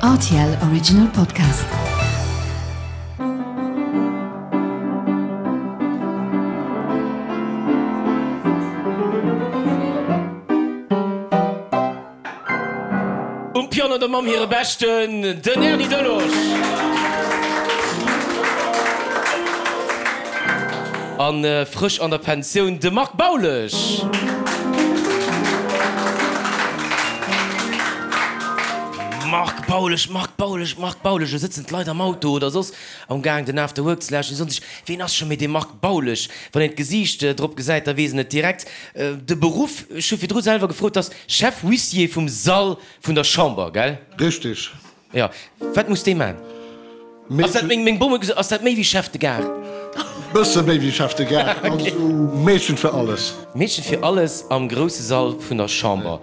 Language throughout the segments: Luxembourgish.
Rtl Original Podcast. Um Piano der Mamm hire Beschten, den Erny Delosch. An frësch an der Pensioun, de Marc Baulesch. Marc Baulesch, Marc Baulesch, Marc Baulesch, elo sëtzen d'Leit am Auto oder soss am Gaang den After Work ze lauschteren, déi soen sech, ween ass scho méi dee Marc Baulesch? Wann een d'Gesiicht drop gesäit, da weess een et direkt. De Beruff, ech hu virdru selwer gefrot, ass Chef Huissier vum Sall vun der Chamber, gell? Richtig. Jo, wat muss dee man? Ass dat, meng Bom huet gesot, ass dat méi wéi Chef de Gare? Bësse méi wéi Chef de Gare, also Meedchen fir alles. Meedchen fir alles am grousse Sall vun der Chamber.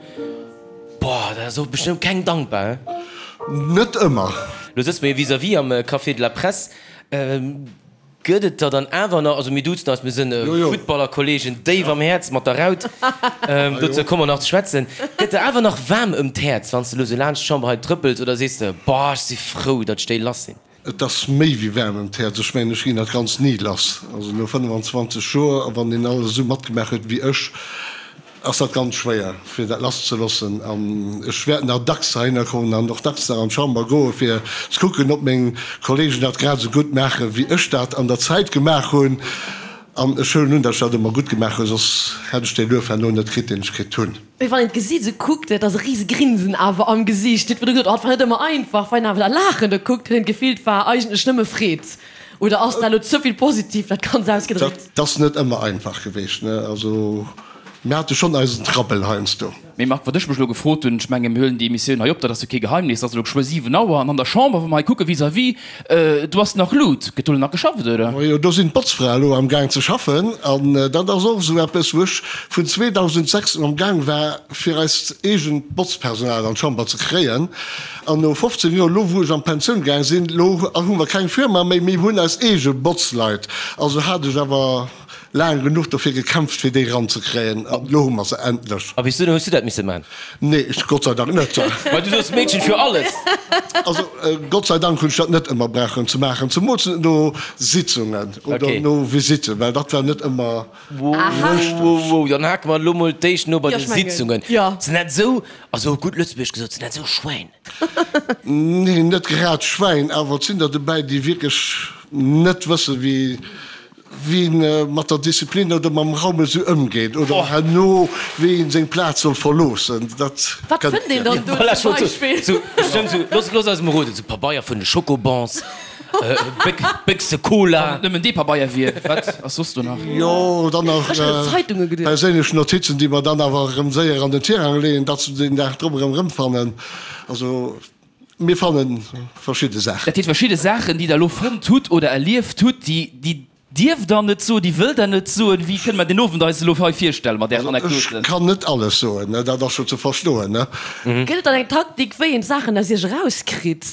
Boah, dat ass och bestëmmt keng dankbar, he? Net ëmmer. Lo sëtze mer jo vis-à-vis am Café de la Presse. Gëtt et der dann awer nach, also mir duzen eis, mir sënn Futtballerkollegen, déif am Häerz mat der Raut, dozou komme mer nach ze schwätzen, gëtt der awer nach waarm ëm d'Häerz, wann s de elo sou laanscht d'Chamber hei trëppels, oder sees de, boah, ech si frou, datt ech déi lass sinn? Et ass méi wéi waarm ëm d'Häerz, ech mengen, ech ginn dat Ganzt ni lass. Also no 25 Joer, a wann een alles esou matgemaach huet wéi ech, ass dat ganz schwéier fir dat lasszeloossen an ech wäert nach dacks heihinner kommen an och dacks nach an d'Chamber goe fir ze kucken, ob meng Kollegen dat grad esou gutt maache wéi ech dat an der Zäit gemaach hunn. An ech huelen un, datt ech dat ëmmer gutt gemaach hunn, soss hätt ech dee Luef herno net kritt, deen ech kritt hunn. Mee wann een d'Gesiit esou kuckt, et ass e rise Grinsen awer am Gesiicht. Dir hutt virdru gesot, oh et war net ëmmer einfach. Wann een awer dat Laachen do kuckt, huet een d'Gefill, et war eigentlech nëmme Freed. Oder ass dat elo ze vill positiv dat Ganzt ausgedréckt? Dat ass net ëmmer einfach geweecht, ne? Also mir hate schonn eisen Trabbel heiansdo. Mee Marc, wat ech mech elo gefrot hunn, ech menge mir huelen déi Emissioun hei op, dat ass jo kee Geheimnis, et ass elo geschwë 7 Auer an an der Chamber, wa mer hei kucke vis-à-vis, do ass nach Lut. Gëtt do elo nach geschafft, oder? Majo, do sinn d'Botzfrae elo am Gaang ze schaffen an dat ass och esou eppes, wou ech vun 2006 un am Gaang war, fir eist eegent Botzpersonal an d'Chamber ze kréien. An no 15 Joer, elo wou ech an d'Pensioun gaang sinn, elo hu mer keng Firma méi, mir hunn eis eege Botzleit. Also hat ech awer laang genuch dofir gekämpft, fir déi eranzekréien, an elo hu mer se endlech. A bis dunn hues du dat misse man? Nee, ech Gott sei Dank net. Well du soos Meedchen fir alles. Also Gott sei Dank hunn ech dat net ëmmer brauchen ze maachen, zemools net no Sitzungen oder no Visitten, well dat war net ëmmer richteg. Wow, dann hake mer elo mol d'éischt no bei de Sitzungen. Sinn dat esou Also op gutt Lëtzebuergesch gesot, sinn dat esou Schwäin? Nee, net grad Schwäin, awer et sinn der dobäi, déi wierklech net wëssen, wéi wéi een mat der Disziplin oder mam Raum esou ëmgeet oder herno wéi een seng Plaz soll verloossen. Dat Wat kënnt fënnt een dann do Voilà, zum Beispill? Sou, bestëmmt sou, looss, looss eis emol roden, sou Pabeier vun de Schokobons, Béchse Cola. Wann et nëmmen dee Pabeier wier, wat ass soss do nach? Jo, dann nach Ech hunn un Zeitunge geduecht. perséinlech Notizen, déi mer dann awer erëm séier an den Tirang leeën, datt se den Dag drop erëm erëmfannen. Also mir fanne verschidde Saachen. Dat heescht, verschidde Saachen, déi Der elo fonnt hutt oder erlieft hutt, déi, déi dierft Der net soen, déi wëllt Der net soen. Wéi kënne mer den Owend eis elo hei virstelle mat Ären Also ech Anekdoten? kann net alles soen, dat ass scho ze verstoen, ne? Gëtt et dann eng Taktik, wéi een d'Saachen aus Iech erauskritt?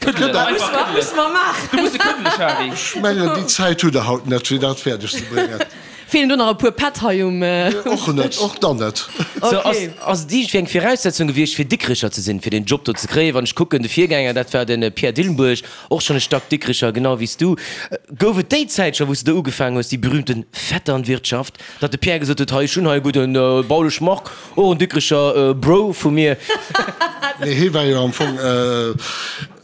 Këddelen, einfach këddelen. Du muss e këddele, Shari. Ech mengen, déi Zäit hutt Der haut net, fir dat fäerdeg ze bréngen. Feelen do nach e puer Pätt hei um Dësch? Och net, och dann net. Sou, ass, ass et iergendwéi eng Viraussetzung gewiescht, fir Dikricher ze sinn, fir deen Job do ze kréien? Wann ech kucken, de Virgänger, dat war de Pierre Dillenburg, och schonn e Stack Dikricher, genau wéi s du. Gouf et déi Zäit scho, wou s de do ugefaangen hues, déi berühmten Vetternwirtschaft, datt de Pierre gesot huet, hei, ech hunn hei e gudden Baulesch Marc, Och en Dikrecher Bro vu mir. Nee, hie war jo am Fong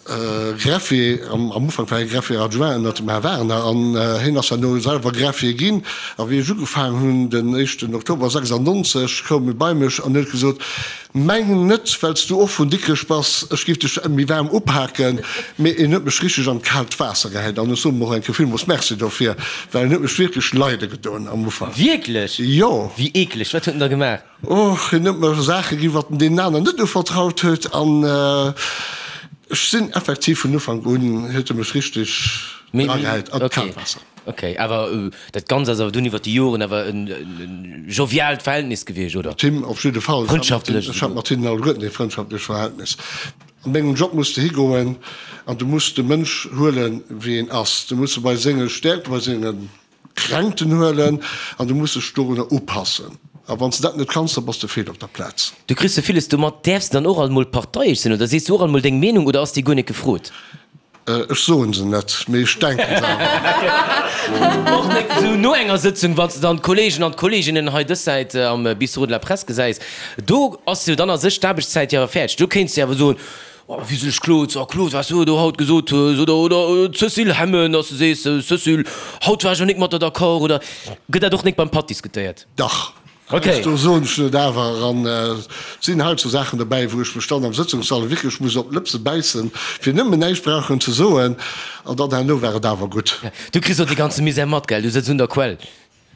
Greffier, am Ufank war hie Greffier adjoint ënnert dem Här Werner an hien ass herno selwer Greffier ginn. A wéi ech ugefaangen hunn, den éischten Oktober 96, koum e bei mech an huet gesot, Meng net, well s du och vun Dikrech bass, ech géif dech méi waarm upaken, mee en huet mech richteg an d'kaalt Waasser gehäit an ech soen em och eng Kéier villmools Merci dofir, well en huet mech wierklech leide gedoen am Ufank. Wierklech? Jo. Wéi eekleg, wat huet en da gemaach? Och, hien huet mer Saache ginn, wat en deenen aneren net uvertraut huet an ech sinn effektiv vun Ufank un huet e mech richteg dragehäit an d'kaalt Waasser. Ok, awer dat Ganzt ass awer dunn iwwer déi Joren awer en joviaalt Verhältnis gewiescht, oder? Mat him op jidde Fall. Frëndschaftlech Ech hat mat hinnen alleguerten ee frëndschaftlech Verhältnis. An mengem Job muss de higoen an du muss de Mënsch huelen, wéi en ass. Du muss e bei senge Stäerkten, bei senge Kränkten huelen an du muss dech dorunner upassen. A wann s de dat net kanns, da bass de fehl op der Plaz. Du kriss sou villes domat. Däerfs de dann och alt mol parteiesch sinn oder sees du och alt mol deng Meenung oder ass déi guer net gefrot? Ech soen se net, mee ech denken se awer. Och net esou no enger Sëtzung, wann s de dann d'Kollegen an d'Kolleginnen hei dës Säit am Bistrot de la Presse gesäis, do ass jo dann a sech d'Aarbechtszäit jo awer fäerdeg. Do kéints de awer soen, Oh, wéi sech Claude, oh Claude, wat s du do haut gesot hues, oder, oder Cécile Hemmen, dass du sees, Cécile, haut war ech elo nik mat der d'accord, oder gëtt dat och nik beim Patt diskutéiert? Dach. Okay. Do soen ech net awer. An et sinn hei sou Saachen dobäi, wou ech mech dann am Sëtzungssall wierklech muss op d'Lëpse bäissen, fir nëmmen näischt brauchen ze soen. An dann herno war et awer gutt. Du kriss och dee ganze Misär mat, gell? Du sëtz un der Quell.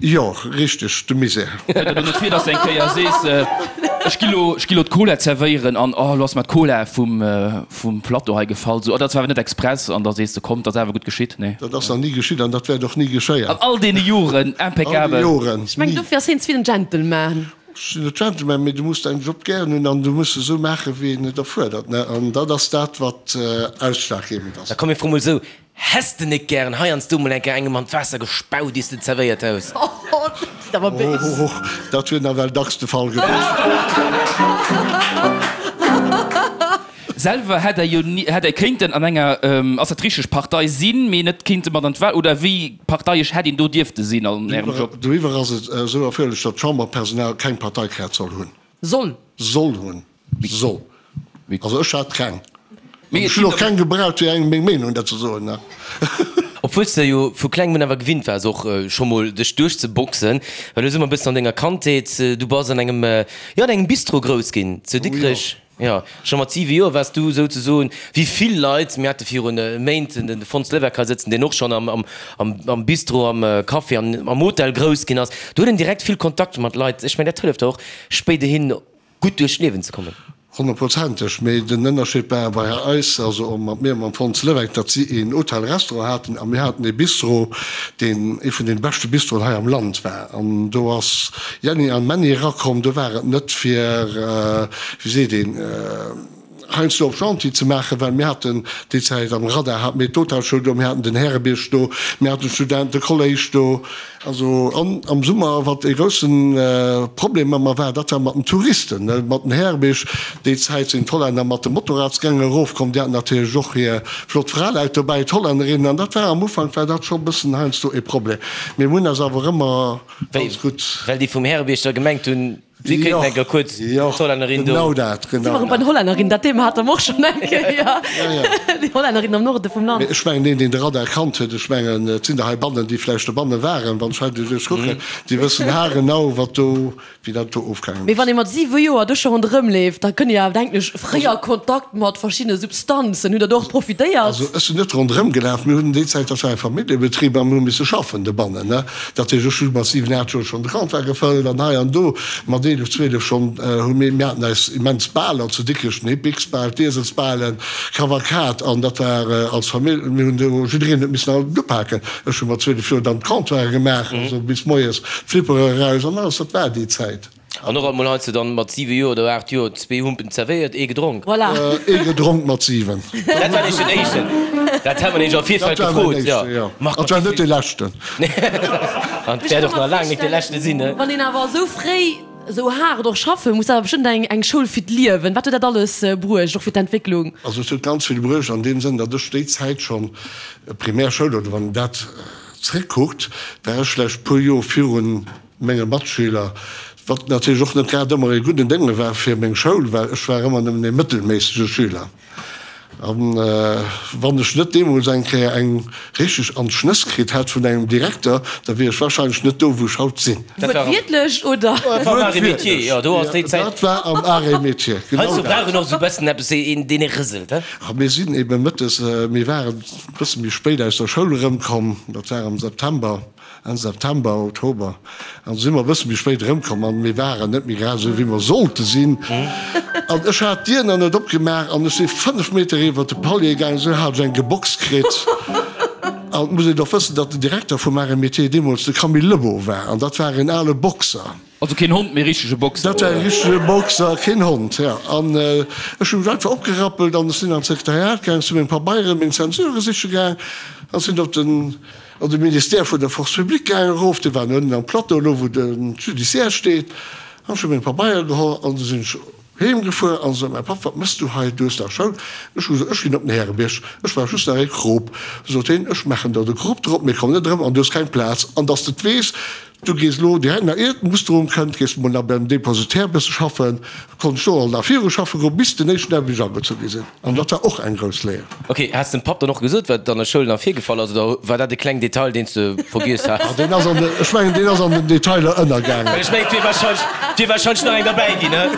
Jo, richteg, de Misär. Kënnt et elo net vir, dass de eng Kéier sees, ech gi lo, ech gi lo d'Cola zerwéieren an, oh, elo ass mer d'Cola vum, vum Plateau hei gefall, sou, oh, dat war awer net express, an da sees de, komm, 't ass awer gutt geschitt, nee? Dat ass nach ni geschitt an dat wäert och ni geschéien. An all deene Joren, impeccabel. All déi Joren, Ech mengen, ni. dofir ass hien ze vill en Gentleman. Ech sinn net Gentleman, mee du muss däin Job gären hunn an du muss esou maachen, wéi en et erfuerdert, ne? An dat ass dat, wat ausschlaggebend ass. Da komm, mir froe mol esou, Häss de nik gären heiansdo mol eng Kéier engem an d'Waasser gespaut, iers de et zerwéiert hues? Oh, dat ass awer béis. Oh, dat wier nawell dacks de Fall gewiescht. Selwer hätt Der jo ni, hätt Der kéinten an enger, ass dat richteg, Partei sinn, mee net kéinte mat an d'Wahl, oder wéi parteiesch hätt een do dierfte sinn an Ärem Job? Doriwwer ass et esou erfuerderlech, datt d'Chamberpersonal keng Parteikaart soll hunn. Soll? Soll hunn. Soll. Also ech hat keng. An ech hunn och keng gebraucht fir engem meng Meenung dat ze soen. Obwuel s de jo vu klengem un awer gewinnt waars och scho mol dech duerchzeboxen, well elo si mer e bëssen an denger Kandheet, du bass an engem, jo an engem Bistro grouss ginn zu Dikrech. Jo, scho mat 7 Joer waars du souzesoen, wéi vill Leit, mir hate virun Méint den Fons Levesque hei sëtzen, deen och schonn am Bistro, am Café an am Hotel grouss ginn ass, do huet een direkt vill Kontakt mat Leit. Ech mengen dat hëlleft der och spéiderhin gutt duerch d'Liewen ze kommen. Honnertprozenteg, mee den Ënnerscheed war bei eis, also och mat mir mam Fons Levesque, datt si een Hotel-Restaurant haten a mir haten ee Bistro, deen ee vun deene beschte Bistroen hei am Land war. An do ass Jänni an Männi erakomm, do war et net fir, wéi seet een, heiansdo op gentil ze maachen, well mir haten déi Zäit am Radar hate mir d'Hotelschoul do, mir haten den Härebierg do, mir haten d'Studentekolléisch do. Also an am Summer, wat ee groussen Problem ëmmer war, dat war mat den Touristen, mat den Härebierg. Déi Zäit sinn d'Hollänner mat de Motorradsgänge erofkomm, déi haten natierlech och hir flott Fraleit dobäi, d'Hollännerinnen, an dat war am Ufank war dat scho bëssen heiansdo ee Problem. Mee mir hunn eis awer ëmmer ganz gutt. Well déi vum Härebierg da gemengt hunn, si kéinten eng Kéier kuerz d'Hollännerin do. Jo, genau dat, Si genau waren bei dat. den Hollännerinnen, dat Thema hate mer och schonn eng Kéier, déi Hollännerinnen am Norde vum Land. Mee ech mengen, deen, deen de Radar kannt huet, ech mengen, et sinn der heibannen, déi vläicht dobanne waren, wann ech hei doduerch kucken, déi wëssen haargenau, wat do wéi dat do ofgaangen Mee wann ee mat 7 Joer do scho ronderëm leeft, da kënne jo awer, denken ech, fréier Kontakt mat verschiddene Substanzen. Hutt Der do och profitéiert? Also ech sinn net ronderëm gelaf. Mir hunn déi Zäit, dat war e Familljebetrib a mir hu misse schaffen dobannen, ne. Dat heescht, ech hu mat 7, 8 Joer schonn de Comptoir gefëllt an hei an do. Mat 11, 12 schonn hu mir, mir haten eis immens Baler zu Dikrech, den Hippiksbal, d'Ieselsbalen, Kavalkad an dat war als Famill, mir hunn do, jiddereen huet missen alt upaken. Ech hu mat 12 Joer dann d'Comptoiren gemaach, also bis moies d'Flippere eraus an alles, dat war déi Zäit. An och emol heiansdo dann mat 7 Joer oder 8 Joer zwee Humpen zerwéiert, ee gedronk. Voilà. Ee gedronk mat 7. Dat war nämlech den éischten. Dat hat mer nämlech am Virfeld Dat war mäin gefrot, jo. éischte, jo. Marc, An 't war net dee leschten. An 't wäert och nach laang net dee leschte sinn, ne? Wann een awer esou fréi esou haart och schaffe muss, awer bestëmmt eng eng Schoul fir d'Liewen. Wat huet dat alles bruecht, och fir d'Entwécklung? Also et huet ganz vill bruecht an deem Sënn, datt ech déi Zäit schonn, Primärschoul oder wann een dat zréckkuckt, war ech vläicht puer Joer virun menge Matschüler, wat natierlech och net grad ëmmer ee gudden Dénge war fir meng Schoul, well ech war ëmmer nëmmen ee mëttelméissege Schüler. An wann ech net deemools eng Kéier eng richteg an d'Schnëss kritt hätt vun engem Direkter, da wier ech wahrscheinlech net do, wou ech haut sinn. Wuertwiertlech, oder? Dat war am Arts et Métiers, jo, do ass déi Zäit. Dat war am Arts et Métiers, genau Heiansdo dat. brauch een och esou e bëssen eppes, een, deen ee rëselt, he? A mir sinn ebe mëttes, mir waren e bësse méi spéit aus der Schoul erëmkomm, dat war am September, Enn September, Oktober, an du si mer e bësse méi spéit erëmkomm an mir waren net méi grad esou wéi mer sollte sinn. An ech hat d'Dier nach net opgemaach an ech si 5 Meter iwwert de Palier gaangen, esou hat ech eng geboxt kritt. An et muss een och wëssen, datt den Direkter vum Arts et Métiers deemools de Camille Lebow war, an dat war een ale Boxer. Also keen Hond, mee richtege Boxer, Dat war e richtege Boxer, keen Hond, jo. An ech hu mech einfach opgerappelt an ech sinn an d'Sekretariat gaang, sinn meng Pabeieren, meng Zensurë siche gaang an sinn op den, an de Ministère vun der Force publique gaang erof, dee war ënnen am Plateau, elo wou de Judiciaire steet, an ech hu meng Pabeiere geholl an du sinn ech heem gefuer an sot mäi Papp, Wat mëss du hei, du hues dach Schoul? Ech hu gesot, Ech ginn op den Härebierg, ech brauch just nach ee Krop. Sot heen, Ech maachen der de Krop drop, mee komm net erëm an du hues keng Plaz. An dass de et weess, du gees elo direkt nach ier d'Musterung kënnt, gees de mol nach beim Depositaire e bësse schaffen. Konnt ech do alt nach viru schaffe goen, bis den éischten Dag, wéi ech agezu gi sinn. An dat war och eng grouss Léier. Ok, has de dem Papp dann och gesot, wat an der Schoul nach virgefall ass, oder war dat e kleng Detail, deen s de vergiess has? Ah, deen ass an de, ech mengen, deen ass an den Detailer ënnergaangen. Well ech mengen, et wier wahrscheinlech, et wier wahrscheinlech nach eng derbäi ginn, ne?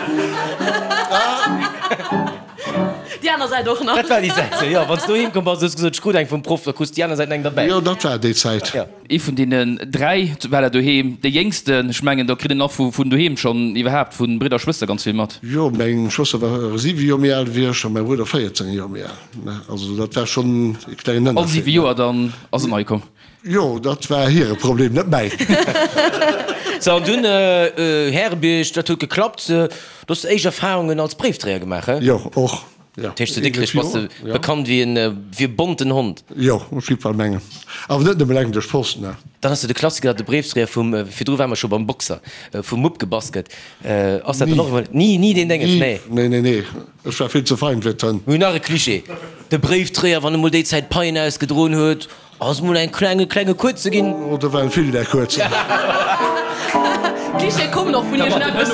Déi aner Säit och nach. Dat war déi Säit, jo. Wann s du doheem komm bass, hues gesot, ech krut eng vum Proff, da krus de déi aner Säit nach eng derbäi. Jo, dat war déi Zäit. Jo. Ee vun deenen 3 war der doheem dee jéngsten. Ech mengen, do kritt een och vun doheem schonn iwwerhaapt vu Bridder a Schwëster ganz vill mat. Jo, meng Schwëster war 7 Joer méi al wéi ech a mäi Brudder 14 Joer méi al. Also dat war schonn e klengen All 7 Ënnerscheed. Joer dann ass en nei komm. Jo, dat war hire Problem, net mäin. Sou, an dunn Härebierg, dat huet geklappt. Do hues de éischt Erfarungen als Bréifdréier gemaach, he? Jo, och. Dat heescht, zu Dikrech bass de bekannt wéi e bonten Hond? Jo, ech géif bal mengen. Awer net nëmme eleng duerch d'Post, ne. Dann ass jo de Klassiker, datt de Bréifdréier vum, virdru ware mer scho beim Boxer, vum Mupp gebass gëtt. Ass dat dann och emol? Ni, ni deen Dénges, nee. Nee, nee, nee, ech war vill ze fein fir d'Hënn. Mir hunn nach e Klischee, de Bréifdréier, wann e mol déi Zäit Paien ausgedroen huet, Ass mol eng kleng e klenge kuerze ginn. Oh, do waren vill där kuerzen. Klischee kommen och vun iergendeppes.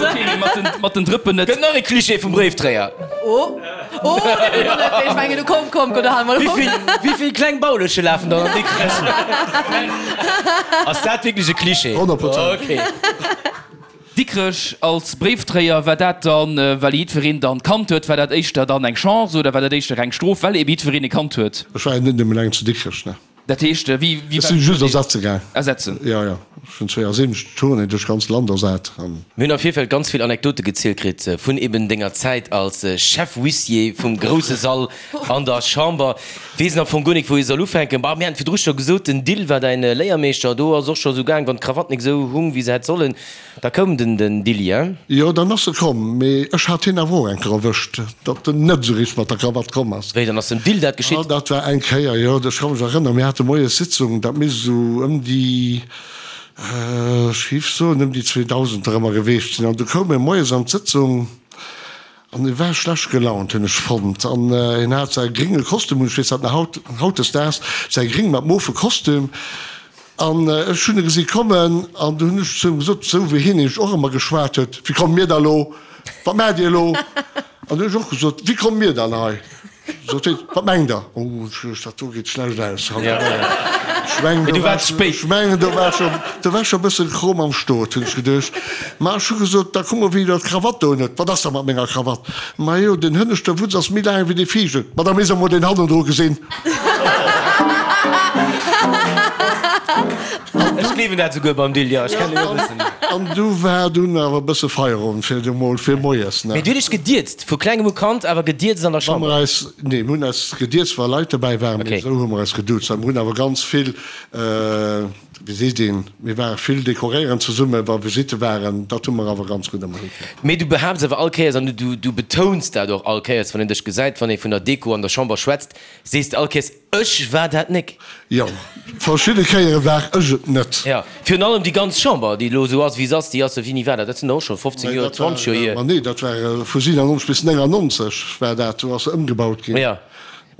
Mat den Drëppen net. Gëtt nach e Klischee vum Bréifdréier. Oh, oh, deen hunn mer net. Ech mengen, du komm, komm, komm, do hale mer op. Wéi vill kleng Bauleche lafen dann an Dikrech? Ass dat wierklech e Klischee? 100%. Okay. Dikrech als Bréifdréier, war dat dann, well jiddwereen dann kannt huet, war dat éischter dann eng Chance oder war dat éischter eng Strof, well ebe jiddwereen e kannt huet? Ech war jo net nëmmen eleng zu Dikrech, ne. Dat heescht, wéi, wéi Ech sinn just ersetze gaang. Ersetzen? Jo, jo. Ech hunn 72 Tournée duerch d'ganz Land ersat an. Mir hunn am Virfeld ganz vill Anekdote gezielt kritt vun eben denger Zäit als Chef-Huissier vum grousse Sall an der Chamber. Weess en am Fong guer nik wou ee soll ufänken. Bah, mir haten virdru scho gesot, den Dill war däin Léiermeeschter. Do ass och scho sou gaang, wann d'Krawatt nik sou hung wéi se hätt sollen, da koum den den Dilli, hein? Jo, dann ass e komm, mee ech hat hien awer och eng Kéier erwëscht, datt en net sou richteg mat der Krawatt komm ass. Wéi, dann ass dem Dill dat geschitt? Ah, dat war eng Kéier, jo, ech ka mech erënneren, mir hate moies Sitzung, dat misst esou ëm déi, ech géif soen, ëm déi 2000 erëmmer geweecht sinn, an du koum e moies an d'Sëtzung, An e war schlecht gelaunt, hunn ech fonnt. An hien hat säi grénge Kostüm un, ech weess dat nach haut, hautdesdaags, säi gréng mat mofe Kostüm. An ech hunn e gesi kommen an du hunn ech zu him gesot, esou wéi hien nämlech och ëmmer geschwat huet, Wéi komme mir da lo? Wat maacht Dir elo? An du hunn ech och gesot, Wéi komme mir dann hei? Sot hien, Wat mengt Der? Oh, dat do geet schlecht aus haut. Ech mengen, do war, ech mengen, do war scho, do war scho e bëssen Chrom am Stot, hunn ech geduecht. Ma ech hu gesot, Da kuck mol, wéi Der d'Krawatt do unhuet. Wat ass da mat menger Krawatt? Majo, den hënneschte Wutz ass méi laang wéi dee viischten. Ma da misst Der mol deen hannendru gesinn. Ech gleewen dat souguer beim Dill, jo, ech kennen hien e bëssen. An du war dunn awer e bësse Feierowend fir emol fir moies, ne? Mee du huet dech gedierzt, vu klengem u kannt, awer gedierzt an der Wa Chamber? mer eis, nee, mir hunn eis gedierzt, wa Leit dobäi waren, mee esou hu mer eis geduuzt. A mir hunn awer ganz vill, wéi seet een, mir ware vill dekoréieren zesummen, wa Visitte waren, dat hu mer awer ganz gutt ëmmer hikritt. Mee du behaapts awer all Kéiers, an du, du betouns dat och all Kéiers, wann een dech gesäit, wann ee vun der Deko an der Chamber schwätzt, sees de all Kéiers, Ech war dat nek. Jo, verschidde Kéiere war ech et net. Jo, virun allem déi ganz Chamber, déi elo esou ass, wéi se ass, déi ass, wéini war dat? Dat sinn der och scho 15 Joer, 20 Joer hier. Ma nee, dat war vu 97 bis 99 war dat, do ass se ëmgebaut ginn. Jo,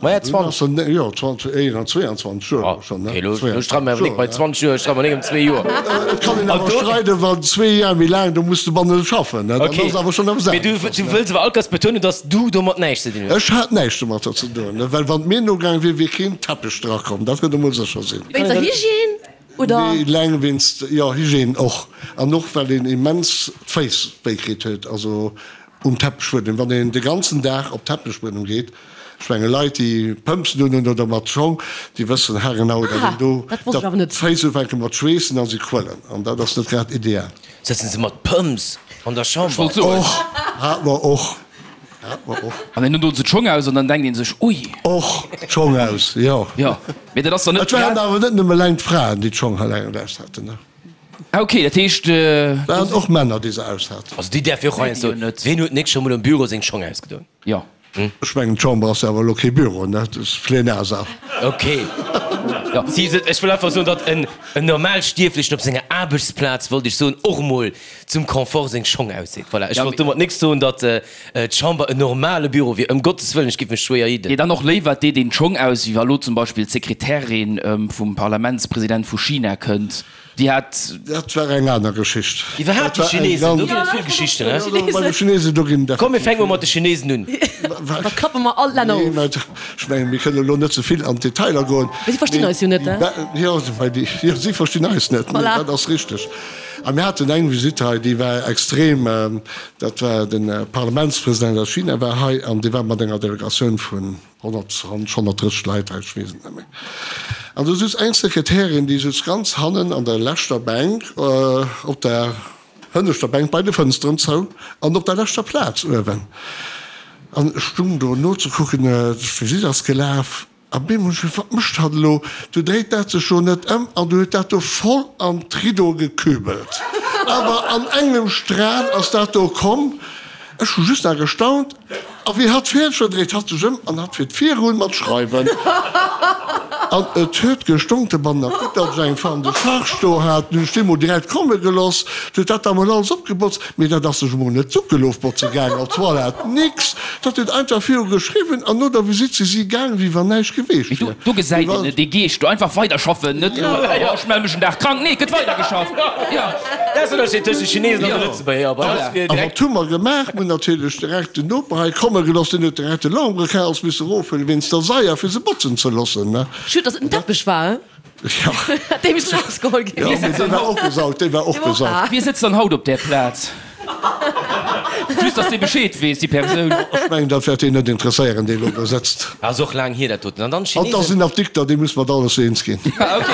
ma ja, 20. Jo, 20, 21 Joer elo schonn, ne? Ok, elo streide mer awer nik bei 20 Joer, streide mer nik ëm zwee Joer. Et kann een awer streiden, wann zwee Joer méi laang, do muss de banne schaffen, ne? Dann ass awer schonn eppes anescht. Mee du wëlls awer all Kéiers betounen, datt s du domat näischt ze dinn hues. Ech hat näischt domatter ze doen, well wann et mir nogaang wier, wier keen Teppech drakomm, dat kënnt emol sécher sinn. Wéinst der Hygiène, oder? Nee, eleng wéinst, jo, Hygiène och, an och well een immens d'Féiss wéi kritt huet, also um Teppichbuedem, wann een de ganzen Dag op Teppichbuedem geet. Ech menge Leit, déi Pëmpsen unhunn oder mat Schong, déi wëssen haargenau, datt een do, datt d'Féiss ufänke mat schweessen a si quëllen, an dat ass net grad ideal. Sëtzen se mat Pëmps an der Chamber? Och, hat mer och. Hat mer och. An dann doen se d'Schong aus an dann denkt een sech, ui. Och d'Schong aus, jo. Jo, mee dat ass dann net. Et waren awer net nëmme eleng d'Fraen, déi d'Schong eleng aus haten, ne? Ah ok, dat heescht. Et waren och Männer, déi se aus haten. Also déi däerf jo och heiansdo. Ween huet nik scho mol am Büro seng Schong ausgedoen? Jo. Ech mengen, d'Chamber ass jo awer elo kee Büro, ne? Dat ass Plenarsaal. Ok. Si se, ech wëll einfach soen, datt en Normalstierflechen op senger Aarbechtsplaz, wollt ech soen, och emol zum Confort seng Schong ausseet. Voilà, ech wollt domat nik soen, datt d'Chamber en normale Büro wier, ëm Gottes Wëllen, ech géif mech schwéier jidden. Nee, dann och léiwer et deet een d'Schong aus, wéi wa lo zum Beispill d'Sekretärin vum Parlamentspresident vu China kënnt. Déi hat. Dat war eng aner Geschicht. Iwwerhaapt déi Chinesen, do ginn et vill Geschichten, he? Jo, bei de Chinesen, do ginn et Komm, mir fänke mol mat de Chinesen un. Da klappe mer all d'Länner Nee, of. mä ech mengen, mir kënnen elo net ze vill an d'Detailer goen. Mee si verstinn eis jo net, he? Jo, well déi, jo, si verstinn eis net, nee, Voilà. dat ass richteg. A mir haten eng Visitt hei, déi war extrem, dat war de Parlamentspresident aus China war hei an dee war mat enger Delegatioun vun 120, 130 Leit hei, ech weess et net méi. An do sutz eng Sekretärin, déi sutz ganz hannen an der leschter Bänk, op der hënneschter Bänk bei de Fënsteren zou an op der leschter Plaz uewen. An ech stung do nozekucken, d'Visitt ass gelaf. A bemol ech gesot, Wat mécht hatt elo? Du dréit dat sech jo net ëm an du huet dat do voll an d'Riddo gekübelt. Awer an engem Stral ass dat do komm. Ech hu just nach gestaunt. A wéi hatt fäerdeg war, dréit hatt sech ëm an hatt fiert virun mat schreiwen. An et huet gestonk de Banner. Gutt, datt ech eng Femme de charge do hat. Nun hunn ech déi mol direkt komme geloss. Du huet dat da mol alles opgebotzt. Mee dat ass sech emol net d'Suckelofbotze gaang, op d'Toilette, nix. Dat huet einfach viru geschriwwen an no der Visitt si si gaang, wéi wann näischt geweecht wier. Do gesäit een et, dee Geescht do, einfach weiderschaffen, net elo, oh ech melle mech en Dag krank, nee, et gëtt weidergeschafft, jo. Dat ass den Ënnerscheed tëscht de Chinesen an de Lëtzebuerger, bei eis wier A direkt. wat hu mer gemaach? Mir hunn natierlech direkt den Noper hei komme gelooss, deen huet direkt de Lambrequin misse erofhuelen wéinst der Saier, fir se botzen ze loossen, ne. Schued, dass et en Teppech war, he? Ja. Dee misst erausgeholl ginn. Ja, mee dee war och gesaugt, dee war och gesaugt. Wie sëtzt dann haut op där Plaz? Just, dass dee Bescheed weess, déi Persoun. Ech mengen, dat wäert deen net interesséieren, dee elo do sëtzt. Ass och laang hier, dat doten. An dann An et ass d'Chinesen. en Apdikter, dee muss mat alles eens ginn. Ah, ok.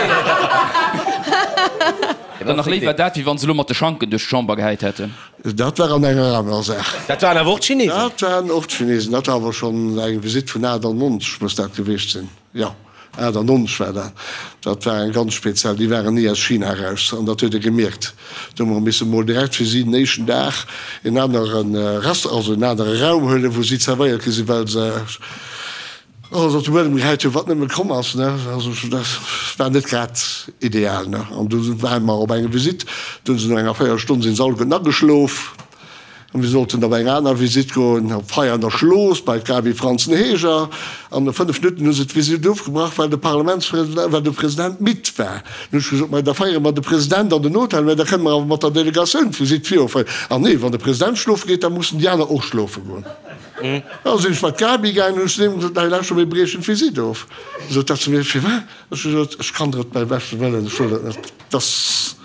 Dann nach léiwer dat, wéi wann se elo mat de Schanken duerch d'Chamber gehäit hätten. Dat war an enger anerer Saach. Dat waren awer och d'Chinesen. Dat waren och d'Chinesen. Dat war awer schonn eng Visitt vun 98 muss dat gewiescht sinn. Jo, 98 war dat. Dat war eng ganz speziell. Déi waren ni aus China eraus an dat huet ee gemierkt. Do hu mer misse mol direkt fir si den éischten Dag en anere Restaurant, also en anere Raum huelen, wou si zerwéiert gi sinn, well se alles op de Buedem gehäit hunn, wat nëmme komm ass, ne. Also dat war net grad ideal, ne. An du ware mer op enger Visitt, do hunn se no enger Véierelstonn sinn se alleguerten ageschlof. An mir sollten op eng aner Visitt goen, op Veianer Schlooss bei d'Gaby Franzen-Heger. An no 5 Minutten hu se d'Visitt ofgebrach, well de Parlamentspresident, well de President midd war. Dunn hu ech gesot, Mä da féiere mer de President an den Hotel, mä da kënne mer awer mat der Delegatioun d'Visitt viroféieren. Ah nee, wann de President schlofe geet, da mussen déi aner och schlofe goen. Da sinn ech mat d'Gaby gaangen, hunn ech zu deem gesot, Nei, lauschter, mir briechen d'Visitt of. Sot dat zu mir, Firwat? Ech hu gesot, Ech kann der et beim beschte Wëllen, ech wëll et net. Dass,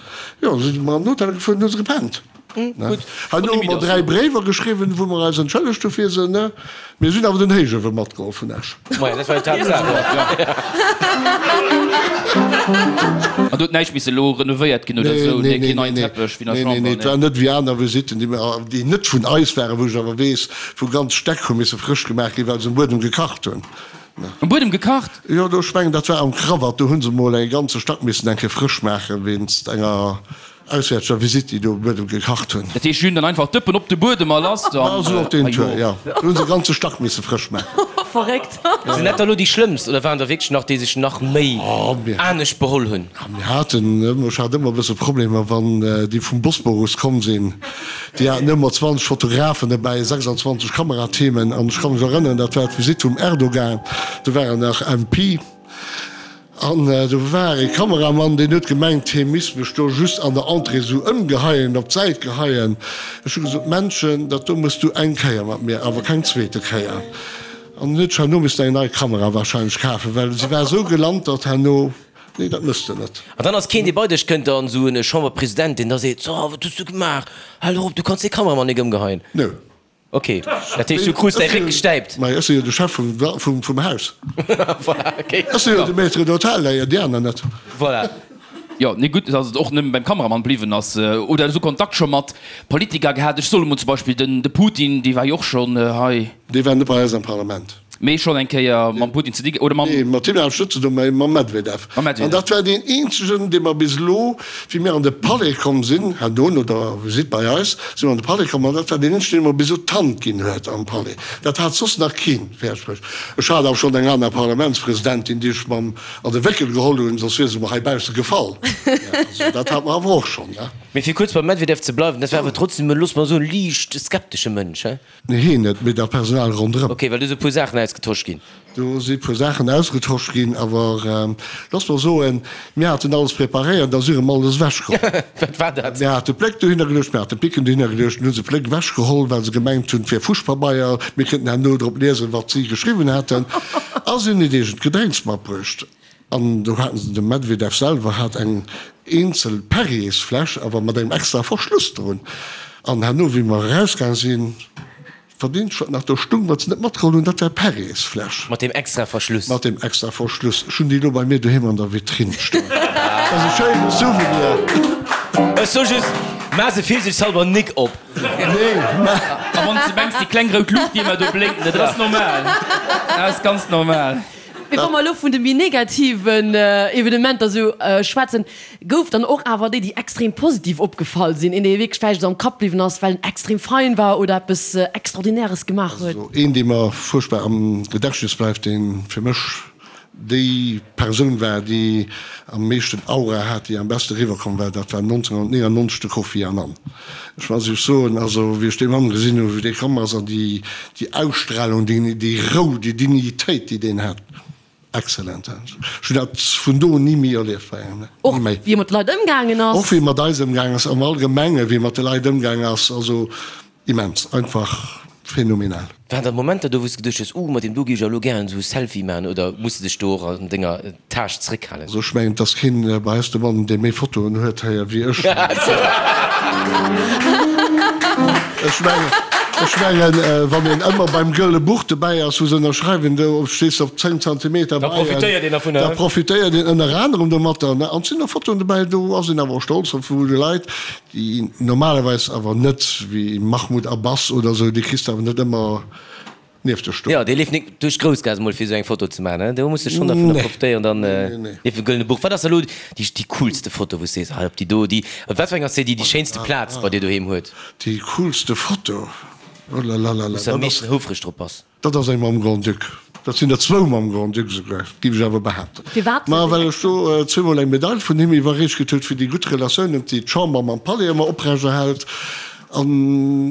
jo, da si mer an den Hotel gefuer an hu se gepennt. Herno hu mer 3 Bréiwer geschriwwen, wou mer eis entschëllegt hu fir se. Mir sinn awer den Héichuewe matgeholl vun Esch. Maja, dat war jo d'Haaptsaach. An do huet näischt misse elo renovéiert ginn oder esou? Nee, keen neien Teppech wéi an der Chamber? Nee, nee, et war net wéi aner Visitten, déi mer, déi net vun eis waren, wou ech awer weess, wou ganz Stäck hu misse frësch gemaach ginn, well se um Buedem gekacht hunn. Um Buedem gekacht? Jo, do, ech mengen, dat war am Krawatt, do hu se mol e ganze Stack missen eng Kéier frësch maachen, wéinst enger Auswäerteger Visitt, déi do um Buedem gekacht hunn. Dat heescht, si hunn dann einfach d'Dëppen op de Buedem a lass dann? Ja, esou op deen Tour, jo. Do hu se e ganze Stack misse frësch maachen. Verréckt. Sinn dat da lo déi schlëmmst oder waren der wierklech nach, déi sech nach méi anescht beholl hunn? Mir haten ëmmer, ech hat ëmmer e bësse Problemer, wann déi vum Bosporus komm sinn. Déi haten ëmmer 20 Fotografen dobäi, 26 Kamerateamen. An ech ka mech erënneren, dat war d'Visitt vum Erdogan, do war en nach MP. An do war ee Kameramann, deen huet gemengt, hie misst mech do just an der Entrée esou ëmgeheien, op d'Säit geheien. Ech hu gesot, Männchen, dat do mëss du eng Kéier mat mir, awer keng zweete Kéier. An en huet sech herno missen eng nei Kamera wahrscheinlech kafen, well si war esou gelantert herno, Nee, dat mëss de net. An dann ass keen, dee bei dech kënnt, an esou e Chamberpresident, deen da seet, So, wat hues du gemaach? Hal och op, du kanns dee Kameramann nik ëmgeheien. Nö. Ok, dat heescht du krus däi Réck gestäipt? Mä ech si jo de Chef vum Haus. Voilà, ok. Ech si jo de Maître d'hôtel, déi aner net. Voilà. Jo, nee gutt, dass et och nëmme beim Kameramann bliwwen ass. Oder esou Kontakt scho mat Politiker gehat? Ech soe mol zum Beispill den de Putin, dee war jo och schonn hei. Dee war net bei eis am Parlament. Mee schonn eng Kéier mam Putin ze di oder mam. Nee, mat him hat ech net ze doen, mä mam Medvedev. Mam Medvedev. An dat war deen eenzegen, dee mer bis elo, wéi mir an de Palais komm sinn, herno no der Visitt bei eis, si mer an de Palais komm, an dat war deen eenzegen, dee mer bis elo d'Hand ginn huet am Palais. Dat hat soss nach keen fäerdeg bruecht. Ech hat awer schonn eng aner Parlamentspresidentin, déi ech mam an de Wéckel geholl hunn, soss wier se mer heibausse gefall. Also dat hat mer awer och schonn, ne. Mee fir kuerz beim Medvedev ze bleiwen, dat war awer trotzdem, looss mer soen, liicht skeptesche Mënsch, he? Nee, hien net, mee dat Personal ronderëm. Ok, well do si puer Saachen ausgetosch ginn. Do si puer Saachen ausgetosch ginn, awer looss mer soen, mir haten alles preparéiert, da si erëm alles ewechgeholl. Wat war dat? Mir hate Pléck dohinner geluecht, mir hate Picken dohinner geluecht, dunn hu se Pléck ewechgeholl, well se gemengt hunn, et wier Fuschpabeier, mir kënnten herno drop liesen, wat si geschriwwen haten. A si hunn hiert eegent Gedrénks matbruecht. An do haten se, de Medvedev selwer hat eng eenzel Perriersfläsch, awer mat engem extrae Verschluss drun. An herno, wéi mer erausgaang sinn, Wat eenzegt wat nach do stung, wat se net matgeholl hunn, dat war d'Perriersfläsch. Mat deem extra Verschluss. Mat deem extra Verschluss. Ech hunn déi elo bei mir doheem an der Vitrinn stoen. Dat ass e schéine Souvenir. Ech soe just, Maach se virsiichtshalber nik op. Nee, mä. A wann s de mengs, déi kleng rout Luucht, déi ëmmer do blénkt, dat ass normal. Dat ass ganz normal. Mee wa mer elo vun de méi negativen Evenementer esou schwätzen, gouf dann och awer déi, déi extrem positiv opgefall sinn, een, dee wierklech vläicht esou am Kapp bliwwen ass, well en extrem fein war oder eppes Extraordinäres gemaach huet? Also een, dee mer fuerchtbar am Gedächtnis bleift, dee fir mech déi Persoun war, déi am meeschten Aura hat, déi am beste eriwwerkomm war, dat war 1999 de Kofi Annan. Ech muss Iech soen, also wéi ech dee Mann gesinn hunn, wéi dee komm ass an déi Déi Ausstrahlung, déi Rou, déi Dignitéit, déi deen hat, excellent. Ech hunn dat vun do un ni méi erlieft bei engem, ni méi. Och wéi e mat de Leit ëmgaangen ass. Och wéi e mat eis ëmgaangen ass, am Allgemenge wéi e mat de Leit ëmgaangen ass, also immens, einfach phänomenal. Waren da Momenter do, wou s de geduecht hues, Uh, mat deem do géif ech elo gären esou e Selfie maachen, oder muss de dech do och an denger Taasch zréckhalen? Also ech mengen, et ass keen bei eis dobannen, dee méi Fotoen huet héier wéi ech. Ech mengen, ech mengen, wann een ëmmer beim Gëlle Buch dobäi ass, wou se ënnerschreiwen, do stees de op 10 Zentimeter bei. Da profitéiert een dervunner. Da profitéiert een ënner anerem domatter. An et sinn och Fotoen dobäi, do ass een awer och stolz drop, wou de Leit, déi normalerweis awer net, wéi Mahmoud Abbas oder esou, déi kriss de awer net ëmmer nieft der Stoen. Jo, dee leeft nik duerch d'Groussgaass emol fir esou eng Foto ze maachen, do muss de schonn dervunner profitéieren, dann nieft dem Gëllene Buch. Wat ass elo déi déi coolste Foto wou s de sees, hei op déi do, déi, wat fir eng ass déi, déi déi schéinste Plaz bei dir doheem huet? Déi coolste Foto? Oh lalalala, Wou s de am meeschten houfreg drop bass? Dat ass eng mam Grand-Duc. Dat sinn der zwou mam Grand-Duc esouguer, géif ech awer behaapten. Firwat? Ma well ech do zweemol eng Medail vun him iwwerreecht kritt huet fir déi gutt Relatiounen, déi d'Chamber mam Palais ëmmer oprechterhält. An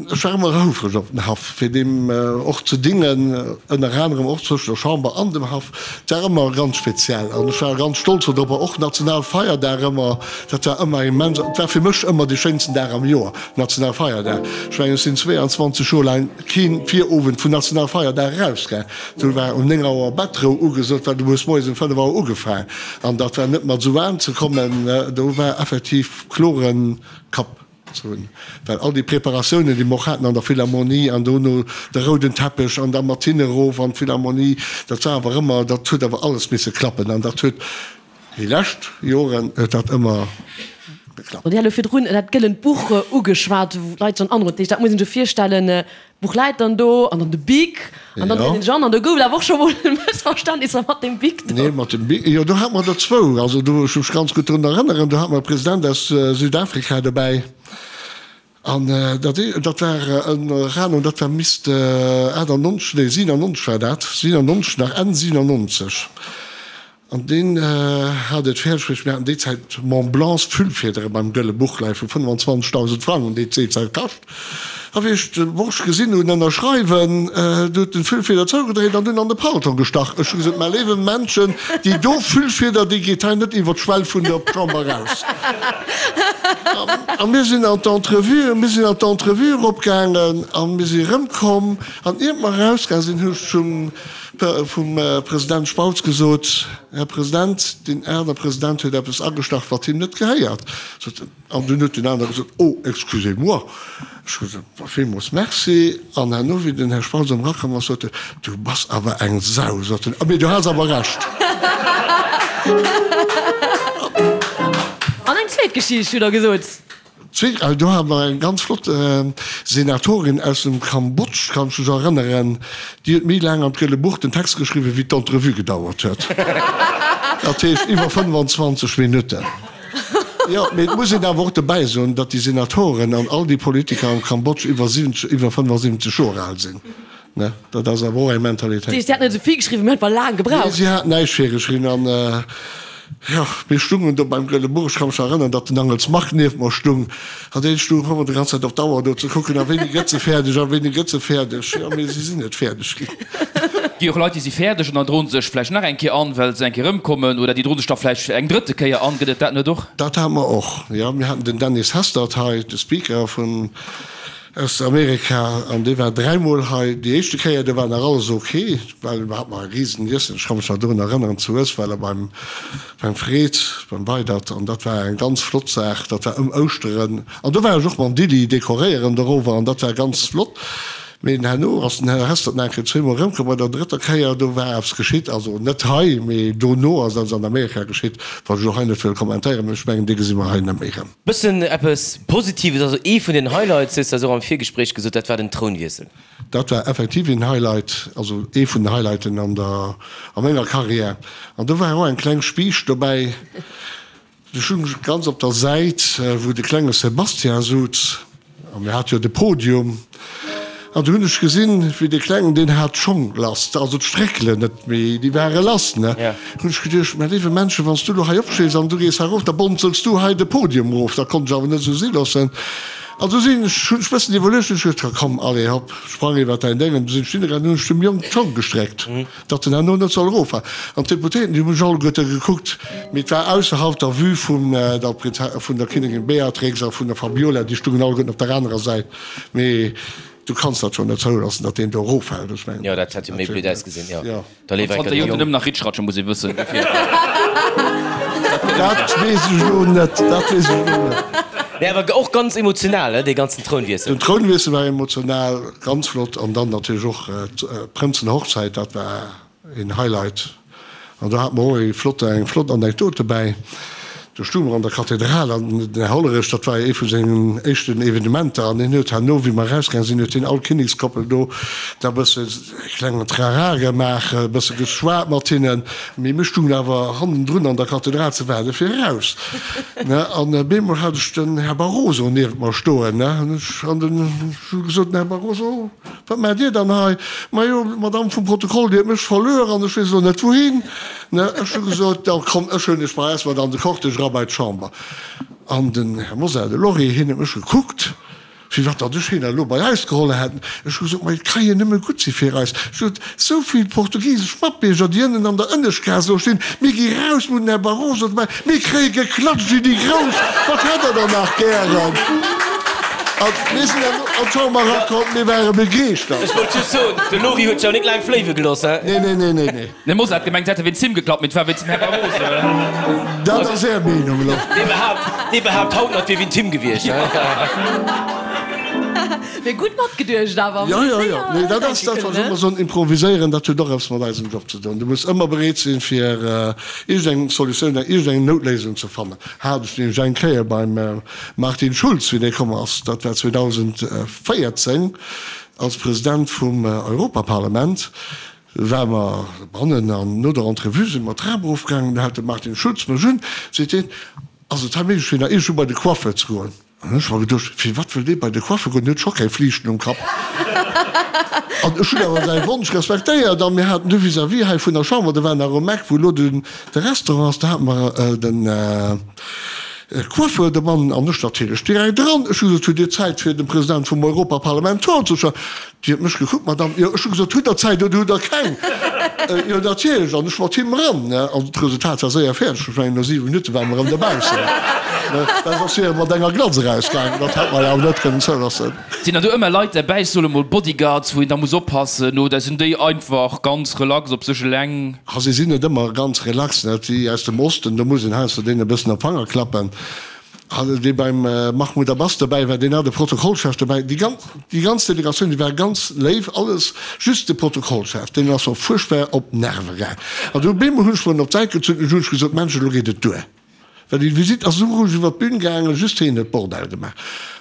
ech war ëmmer houfreg op den Haff, fir deem och ze dingen, ënner anerem och zwëschen der Chamber an dem Haff. Et war ëmmer ganz speziell an ech war ganz stolz dodropper. Och Nationalfeierdag ëmmer, dat war ëmmer immens. Et war fir mech ëmmer dee schéinsten Dag am Joer, Nationalfeierdag. Ech mengen, ech sinn 22 Joer laang kee Virowend vun Nationalfeierdag erausgaang. Do war um 9 Auer Bettrou ugesot, well du hues moies um 5 Auer ugefaang. An dat war net mat esou waarm ze kommen, do war effektiv klore Kapp. Ze hunn, well all déi Preparatiounen, déi mer och haten an der Philharmonie an dono de rouden Teppech an da mat hinne erof an d'Philharmonie, dat war awer ëmmer, dat huet awer alles misse klappen an dat huet déi lescht Joren huet dat ëmmer geklappt. Dir hat elo virdrun dat gëllent Buch ugeschwat, wou d'Leit schonn aneren, dat muss een sech virstellen, d'Buch läit dann do an dann de Bic an dann dréint een sech an an do gouf et awer och scho mol Mëssverständnisser mat deem Bic do. Nee, mat dem Bic, jo do hate mer der zwou, also do, ech mech ganz gutt drun erënneren, do hate mer e President aus Südafrika dobäi an dat ee, dat war ënner anerem, dat war misst 98, nee 97 war dat, 97 nach, Enn 97. An deen hat et fäerdeg bruecht, mir haten déi Zäit Mont Blancs Füllfiedere beim Gëlle Buch leie vu 25.000 Frang, hunn déi déi Zäit kascht. A wéi ech de Borscht gesinn hunn ënnerschreiwen, du huet en d'Füllfieder zougedréit an dunn an de Paltong gestach. Ech hu gesot, Mä léiwe Männchen, déi do Füllfieder, déi geet hei net iwwer d'Schwell vun der Chamber eraus. A mir sinn an d'Entrevue, mir sinn an d'Entrevue eropgaangen a mir si erëmkomm. An iert mer erausgaange sinn, hu ech zum Vum President Spautz gesot, Här President, deen aner President huet eppes agestach, wat him net gehéiert. Sot en. An dunn huet deen aner gesot, Oh, excusez-moi. Ech hu gesot, Ma villmools merci. An herno, wéi den Här Spautz erëm erakomm ass, sot en, Du bass awer eng Sau, sot en, mee du has awer Recht. Zweet Geschicht hutt Der gesot. Zweet, do hate mer eng ganz flott Senatorin aus dem Kambodsch, kann ech mech erënneren, déi huet méi laang an d'Gëlle Buch den Text geschriwwen, wéi d'Entrevue gedauert huet. Dat heescht iwwer 25 Minutten. Jo, mee et muss een awer och dobäi soen, datt déi Senatoren an all déi Politiker am Kambodsch iwwer 70, iwwer 75 Joer al sinn. Ne, dat ass awer och eng Mentalitéit. Dat heescht, si hat net esou vill geschriwwen, mee einfach laang gebraucht? Nee, si hat näischt virgeschriwwen. An, jo, mir stungen do beim Gëlle Buch. Ech ka mech nach erënneren, datt den Angels Marc nieft mer stung. An dee stung och ëmmer déi ganz Zäit op d'Auer do ze kucken, a wéini gëtt se fäerdeg, a wéini gëtt se fäerdeg. Jo, mee si sinn net fäerdeg ginn. Gi och Leit, déi si fäerdeg an dann droen se sech vläicht nach eng Kéier an, well se eng Kéier erëmkommen, oder déi droen sech da vläicht eng drëtte Kéier an. Gëtt et dat net och? Dat hate mer och, jo. Mir haten den Dennis Hastert hei, de Speaker vun Aus Amerika, an dee war dräimol hei. Déi éischte Kéier, do war nach alles ok, well do hat mer e risen Iessen, ech ka mech nach dorun erënneren, zu Uesweller beim, beim Fred, beim Weidert, an dat war eng ganz flott Saach, dat war ëm Ouschteren, an do war ech och mam Dilli dekoréieren dorower, an dat war ganz flott. Mee herno ass den Här Hestert nach eng Kéier zweemol erëmkomm, bei der drëtter Kéier, do war eppes geschitt, also net hei, mee dono ass eppes an Amerika geschitt, wat ech elo hei net wëll kommentéieren, mee ech mengen, dee gesi mer hei net méi erëm. Bëssen eppes Positives, also ee vun den Highlights, hues de eis och am Virgespréich gesot, dat war den Trounwiessel. Dat war effektiv een Highlight, also ee vun den Highlighten an der, a menger Carrière. An do war och eng kleng Spiicht dobäi. Do stung ech ganz op der Säit, wou de klenge Sébastien suz. A mir hate jo de Podium. An du hunn ech gesinn, wéi dee Klengen, deen hat d'Schong lass, also d'Stréckelen net méi, déi ware lass, ne? Hunn ech geduecht, Mä léiwe Männchen, wann s du elo hei opstees an du gees hei erof, da bonzels du hei de Podium erof. Dat konnt ech awer net esou si loossen. An du sinn ech, hunn ech bëssen iwwerluecht, hunn ech geduecht, Komm, allez, hopp, sprang iwwer däin Déng. An du sinn ech hinnegaangen, hunn ech dem Jong d'Schong gestréckt. Datt en herno net soll eroffalen. An d'Deputéierten, déi hu mech alleguerte gekuckt, mee et war ausserhalb der Vue vun der vun der Kinnigin Beatrix a vun der Fabiola, déi stungen alleguerten op der anerer Säit. Mee du kanns dat jo net zouloossen, datt deen do eroffält. Ech mengen, Jo, dat hätt jo méi blöd ausgesinn, jo. Jo. Da léiwer Zanter enker de Joer Jong. nëmmen nach Ritschratsche muss ee wëssen, dofir. Dat weess ech elo net, dat weess ech elo net. Nee, awer och ganz emotional, he, dee ganzen Trounwiessel. Den Trounwiessel war emotional, ganz flott. An dann natierlech och d'Prënzenhochzäit, dat war een Highlight. An do hate mer och ee flotte, eng flott Anekdot dobäi. Do stounge mer an der Kathedral an den Här Hollerich, dat war jo ee vu sengen éischten Evenementer, an hien huet herno, wéi mer erausgaange sinn, huet hien all Kinnekskoppel do da e bësse e klengen Trara gemaach, e bësse geschwat mat hinnen. Mee mir stungen awer hannendrun an der Kathedral ze waarde fir eraus, ne. An bemol hat ech den Här Barroso niewent mer stoen, ne, an ech an den, ech hu gesot, Den Här Barroso, wat maacht Dir dann hei? Majo, d'Madame vum Protokoll, déi huet mech verluer an ech weess elo net wouhin, ne. Ech hu gesot, Da komm, ech huelen dech bei eis mat an de Cortège era bei d'Chamber. An den Här Mosar, de Lory, hien huet mech gekuckt. Firwat datt ech hien elo bei eis geholl hätt? Ech hu gesot, Ma et ka jo nëmme gutt si fir eis. Ech hu gesot, Esou vill portugisesch Matbierger, déi ënnen an der Ënneschtgaass elo stinn, mir gi raus, mir hunn den Här Barroso dobäi, mir kréie geklatscht wéi déi Grouss, wat hätt Der dann nach gären? A mir sinn herno an d'Chamber erakomm, mir ware begeeschtert. Ech wollt just soen, de Lory huet sech awer net laang fléiwe gelooss, he? Nee, nee, nee, nee, nee. De Mosar hat gemengt, se hätte wéinst him geklappt, mee et war wéinst dem Här Barroso. Dat ass Är Meenung elo. Dee behaapt, dee behaapt haut nach, et wier wéint him gewiescht. Mee gutt matgeduecht awer. Jo, jo, jo. Nee, dat ass dat, wat ech ëmmer soen, Improviséieren, dat huet och eppes mat eisem Job ze doen. Du muss ëmmer bereet sinn, fir iergendeng Solutioun, iergendeng Noutléisung ze fannen. Hat ech nämlech eng Kéier beim Martin Schulz, wéi dee komm ass, dat war 2014, als President vum Europaparlament, Ware mer bannen an no der Entrevue si mer d'Trap erofgaangen. Du hält de Martin Schulz mech un, seet hien, Ass et hei méiglech fir nach iergendwou bei de Coiffeur ze goen? An ech hu mer geduecht, Firwat wëll dee bei de Coiffeur goen, deen huet scho keng Fliichten um Kapp. An ech hunn awer säi Wonsch respektéiert a mir haten du vis-à-vis hei vun der Chamber, do war nach um Eck wou elo de Restaurant ass, do hate mer den Coiffeur, de Mann an ech natierlech direkt eran. Ech hu gesot, Hutt Dir Zäit fir dem President vum Europaparlament d'Hand ze schëllen? Déi huet mech gekuckt, Madame, jo, ech hu gesot, hutt Der Zäit oder hutt Der keng? Jo, natierlech, an ech mat him eran, ne, an d'Resultat war séier fäerdeg, ech mengen, no 7 Minutte ware mer erëm dobaussen, ne, well soss wier e mat enger Glatz erausgaangen, dat hätt mer jo awer net kënnen zouloossen. Sinn dann do ëmmer Leit derbäi, ech soe mol Bodyguards, wou een da muss oppassen, oder sinn déi einfach ganz relax op sech eleng? Ha, si sinn net ëmmer ganz relax, ne, déi aus dem Osten, do muss een heiansdo deenen e bëssen op d'Fanger klappen. Dee beim Mahmoud Abbas dobäi war, deen hat e Protokollchef dobäi. Déi ganz, déi ganz Delegatioun, déi war ganz léif, alles, just de Protokollchef, deen ass mer fuerchtbar op d'Nerve gaang. An du op eemol hunn ech mer en op d'Säit gezunn an hunn ech gesot, Mensch, elo geet et duer. Well déi Visitt ass esou roueg iwwer d'Bün gaangen, just hien huet Bordell gemaach.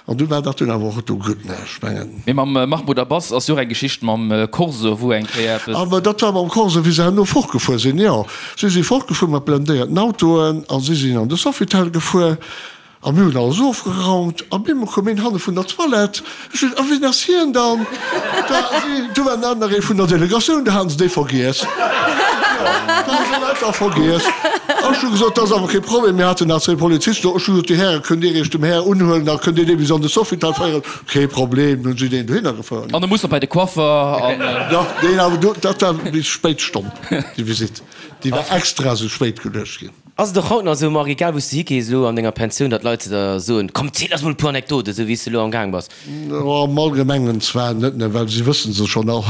An du war dat dunn awer och do gutt, ne, ech mengen. Mee mam Mahmoud Abbas ass jo och eng Geschicht mam Corso, wou eng Kéier eppes. Ah, mä dat war mam Corso, wéi se herno fortgefuer sinn, jo. Si si fortgefuer mat blendéierten Autoen a si sinn an de Sofitel gefuer. A mir hunn alles ofgeraumt a bemol koum een hanne vun der Toilette. Ech hunn, A wien ass hien dann? Da si, do war nach nach ee vun der Delegatioun, do haten se dee vergiess. Jo, do hu se leider vergiess. A ech hu gesot, Dat ass awer kee Problem, mir haten nach zwéi Polizisten do. Ech hu gesot, Dir Häre, kënnt Dir Iech dem Här unhuelen, da kënnt Dir dee bis an de Sofitel féieren. Kee Problem, hunn si deen dohinner gefouert. An e muss nach bei de Coiffer an. Jo, deen awer do, dat war bis spéit Stonn, déi Visitt. Déi war extra esou spéit geluecht ginn. Ass et och haut nach esou, Marc, egal wou s de higees elo an denger Pensioun, datt d'Leit zu der soen, Komm, ziel eis mol e puer Anekdoten, esou wéi s de elo am Gaang bass? Am Allgemengen zwar net, ne, well si wëssen se schonn all.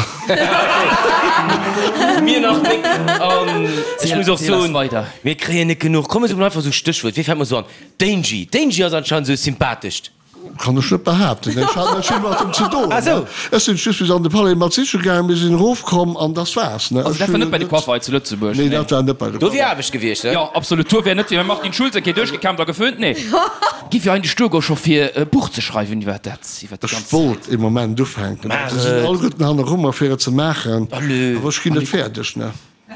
Mir nach nik. An ech muss och soen, mir kréien net genuch. Komm, mir soen einfach esou Stéchwuert, wee fält mer esou an? D'Angie. D'Angie ass anscheinend esou sympathescht. Kann ech net behaapten. Ech hat net vill mat em ze doen. Ech sinn just bis an de Palais mat siche gaangen, mir sinn erofkomm an dass war's. Also dat war net bei de Coiffer hei zu Lëtzebuerg? Nee, dat war net bei de Coiffer. Do wier Aarbecht gewiescht, ne? Jo, absolut. Do wär net fir Martin Schulz eng Kéier duerchgekämmt a geföhnt, nee. Giff jo eigentlech duergoen scho fir e Buch ze schreiwen iwwer dat, iwwer déi Ech ganz. wollt ee Moment ufänken, Maach se sinn et. alleguerten hanneru mer fir et ze maachen, Allez. awer ech ginn net fäerdeg, ne.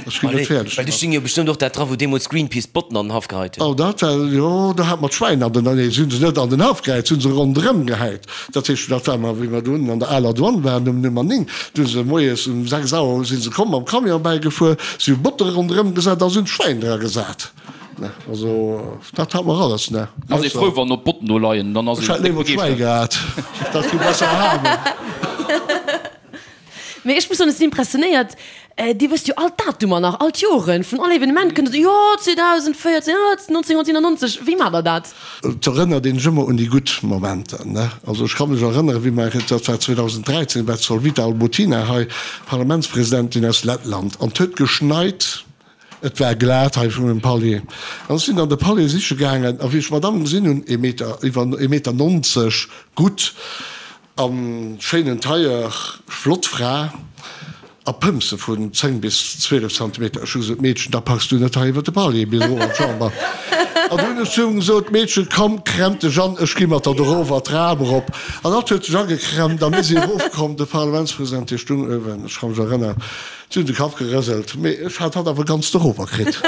Ech ginn net fäerdeg Well do sting jo bestëmmt och dat dra wou deemools Greenpeace d'Botten an den Haff geheit hunn. Oh dat war, jo do hat mer d'Schwäin an den, nee si hunn se net an den Haff gehäit, si hunn se ronderëm gehäit. Dat heescht, dat war mer wéi mer do unnen an der aler Douane waren um Nummer 9, do hu se moies um 6 Auer si se komm mam Camion bäigefuer, si hu Botte ronderëm gesat a si hunn d'Schwäin dra gesat. Ne, also dat hat mer alles, ne. Ass ee frou wann op d'Botten do leien, dann ass Ech ee hätt léiwer d'Schwäi gehat, dat gi besser halen. Mee ech muss soen, ech sinn impressionéiert, Dir wësst jo all d'Datumer nach, all d'Joren vun all Evenement, kënnt der soen, jo 2014, jo 1997, wéi maacht der dat? Et erënnert een sech ëmmer un déi gutt Momenter, ne? Also ech ka mech erënneren, wéi mer, dat war 2013, war d'Solvita Albutina hei, Parlamentspresidentin aus Lettland, an et huet geschneit, et war glat hei vun dem Palier, an ech sinn an de Palier siche gaangen, a wéi ech d'Madame gesinn hunn, ee Meter, iwwer ee Meter 90, gutt, An schéinen Tailleur, flott Fra a Pëmse vun 10 bis 12 Zentimeter. Ech hu gesot, Meedchen, da packs du net hei iwwer de Palier bis erof an d'Chamber. An du hunn ech zu him gesot, Meedchen, komm, kremm dech an, ech gi mat der erof an d'Trap erop. An hatt huet sech ageklemmt a mir si erofkomm. De Parlamentspresident, dee stung uewen, ech ka mech erënneren, si hunn de Kapp gerëselt, mee ech hat hatt awer ganz dorower kritt.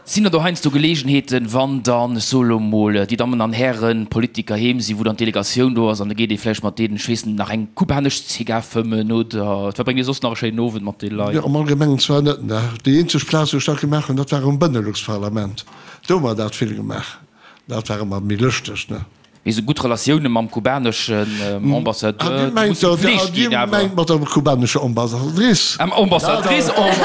Sinn der do heiansdo Geleegenheeten, wann dann, ech soe lo mol, déi Dammen an Hären Politiker heem sinn, wou dann d'Delegatioun do ass an da geet ee vläicht mat deenen, ech weess net, nach eng kubanesch Zigar fëmmen oder verbréngt ee soss nach e schéinen Owend mat deene Leit? Jo, am Allgemengen zwar net, ne. Déi eenzeg Plaz, wou ech dat gemaach hunn, dat war um Benelux-Parlament. Do hu mer dat vill gemaach. Dat war ëmmer méi lëschteg, ne. Mee sou gutt Relatioune mam kubaneschen Ambassadeur, déi musse gepflegt ginn awer. Dir mengt mat der kubanescher Ambassadrice? Ambassadrice en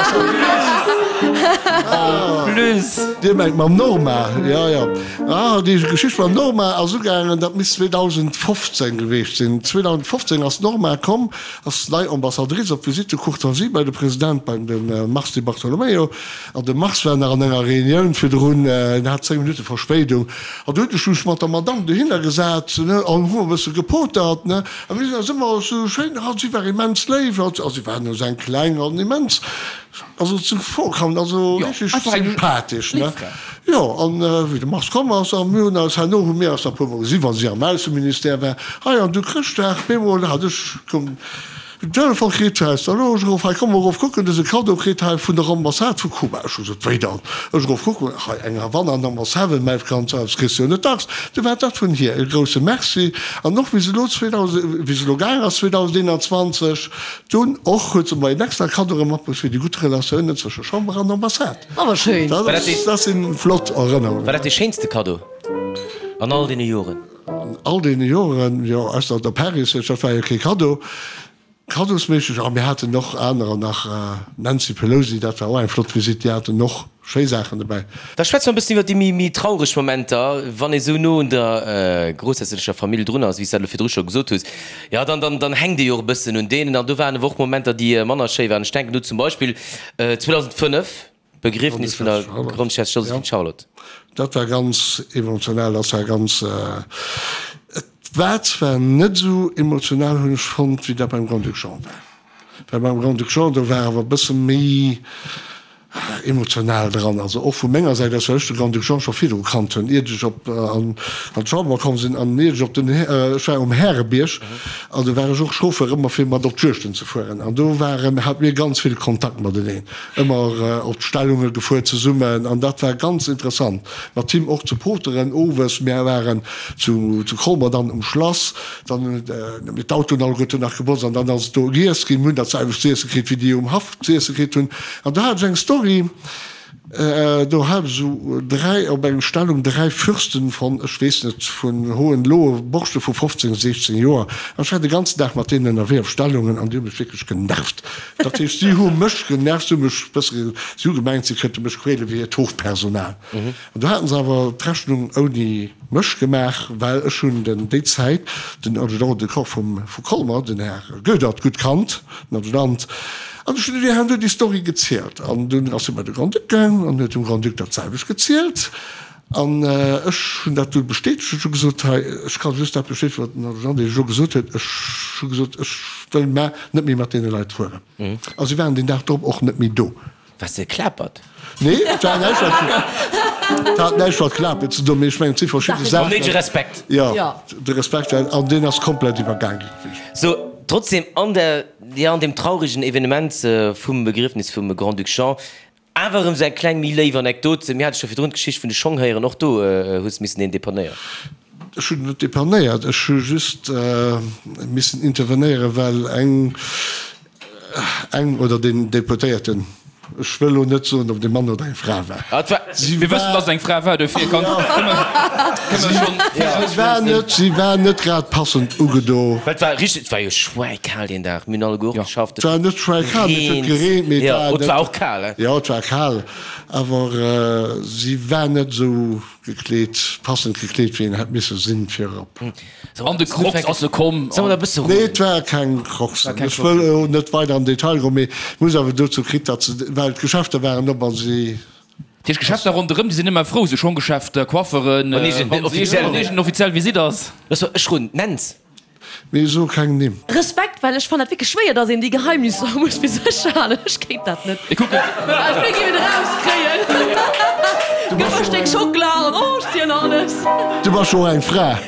plus! Dir mengt mam Norma, jo, jo. Ah, déi Geschicht mam Norma ass ugaangen, dat misst 2015 geweecht sinn. 2015 ass d'Norma komm, ass nei Ambassadrice op Visite de courtoisie bei de President, beim de Mars Di Bartolomeo. An de Mars war nach an enger Reunioun virdrun, en hat 10 Minutte Verspéidung. An du hunn ech mech mat der Madamm dohinner gesat, ne, an hu e bësse gepotert, ne. A mir sinn eis ëmmer esou schéin, a si war immens léif, a si war no seng kleng an immens, also zuvorkommend, also richteg sympathesch, ne. Jo, an wéi de Mars komm ass, a mir hunn eis herno, hu mir eis nach e puermol gesinn, wa si am Ausseministère war, hei an du Chrëschtdag, bemol hat ech, koum, Den Telefon kritt aus der Loge erof, Hei, komm erof kucken, dëse Cadeau kritt hei vun der Ambassade vu Kuba. Ech hu gesot, Wéi dann? Ech erof kucken, hei eng Havanna an Ambassade, mäi Franz, das kriss du jo net dacks. Du war dat vun hir e grousse Merci. An och wéi se elo 2000, wéi se elo gaang ass 2021, dunn och huet se mer een extra Cadeau erëm matbruecht fir déi gutt Relatiounen zwësche Chamber an Ambassade. Awer schéin. Dat ass, dat si flott Erënnerungen. War dat dee schéinste Cadeau an all deene Joren? An all deene Joren, jo, ausser der Paris, dat war jo kee Kaddo, kaddosméisseg, a mir haten och anerer nach, Nancy Pelosi, dat war och eng flott Visitt, déi haten och schéi Saachen dobäi. Da schwätze mer e bëssen iwwer déi méi traureg Momenter, wann ee sou no un der groussherzoglecher Famill drun ass, wéi s de dat elo virdru scho gesot hues, jo, dann, dann, dann hänkt ee jo och e bëssen un deenen. An do waren awer och Momenter, déi manner schéi waren. Ech denken do zum Beispill 2005, D'Begriefnis vun der Grondchef Joséphine Charlotte. Dat war ganz emotional, dat war ganz, et war zwar net esou emotional, hunn ech fonnt, wéi dat beim Grand-Duc Jean war. Well beim Grand-Duc Jean, do war awer e bësse méi. Emotional dran, also och vu menger Säit aus, well ech de Grand-Duc Jean scho virdru kannt hunn, iert ech op an d'Chamber komm sinn an iert ech op den, ech war um Härebierg an do war ech och Chauffeur ëmmer fir mat op d'Juegten ze fueren an do waren, hate mir ganz vill Kontakt mateneen, ëmmer op d'Stellunge gefuer zesummen an dat war ganz interessant mat him och ze poteren owes. Mir waren zu zu Colmer dann um Schlass, dann hunn mir d'Autoen alleguerten nach gebotzt an dann ass et do giess ginn, mir hunn dat selwecht z'iesse kritt wéi déi um Haff z'iesse kritt hunn. An do hat ech eng Story, do hat ech esou 3, op eng Stellung 3 Fürsten von, ech weess net, vun Hohenlohe, Borschte vu 15, 16 Joer, an ech war de ganzen Dag mat deenen ënnerwee op Stellungen an déi hu mech wierklech genervt. Dat heescht, si hu mech genervt, si hu mech bësse, si hu gemengt, si kënnte mech quäle wéi hiert Hofpersonal. An do haten se awer d'Rechnung ouni mech gemaach, well ech hunn den déi Zäit den Adjudant de corps vum vu Colmer, den Här Goedert, gutt kannt, den Adjudant, an ech hunn deem herno déi Story gezielt. An dunn ass hie bei de Grand-Duc gaang an huet dem Grand-Duc dat selwecht gezielt. An ech hunn dat du bestätegt. Ech hu gesot, hei, ech ka just dat bestätegen, wat den Adjudant Iech elo gesot huet. Ech hu gesot, ech wëll mar net méi mat deene Leit fueren. A si waren deen Dag drop och net méi do. Waars de geklapert? Nee, et war näischt mat, et hat näischt mat Klapen ze doen, mee ech mengen, et si verschidde Saachen. Mam néidege Respekt. Jo, de Respekt war, an deen ass komplett iwwergaang ginn. Sou, trotzdem an der, jo, an deem trauregen Evenement vum Begriefnis vum Grand-Duc Jean, awer erëm sou eng kleng méi léif Anekdot. Mir hate scho virdrun d'Geschicht vun de Schong héieren, och do hues de missen een depanéieren. Ech hunn net depanéiert, ech hu just missen intervenéieren, well eng, Eng oder deen Deputéierten, ech wëll elo net soen, ob et e Mann oder eng Fra war. Mir wëssen, datt et eng Fra war, dofir kann Si war net, si war net grad passend ugedo. Well et war richteg, et war jo schwäikal deen Dag, mir hunn alleguer och geschafft. Et war net schwäikal, mee et huet gereent, mee et war net. Et war och kal, he? Jo, et war kal, awer si war net esou gekleet, passend gekleet, wéi een hätt misse sinn, fir erop. An de Crocs ass e komm. Nee, et ware keng Crocsen. Ech wëll elo net weider am Detail goen, mee ech muss awer dozou kritt, datt se, well d'Geschäfter waren op a si. Dat heescht, Geschäfter ronderëm, déi sinn ëmmer frou, sou Schonggeschäfter, Coifferen, wann iergend offiziell Visitt ass. Looss mol, ech run, nenns. Mee so keng Nimm. Respekt, well ech fannen dat wierklech schwéier, dass een déi Geheimnisser muss fir sech halen. Ech kéint dat net. Mir kucken. Ech wéi géif et erauskréien. Du Gëff bass mer e jo Stéck Schockela an oh, ech zielen alles. Du bass jo och eng Fra.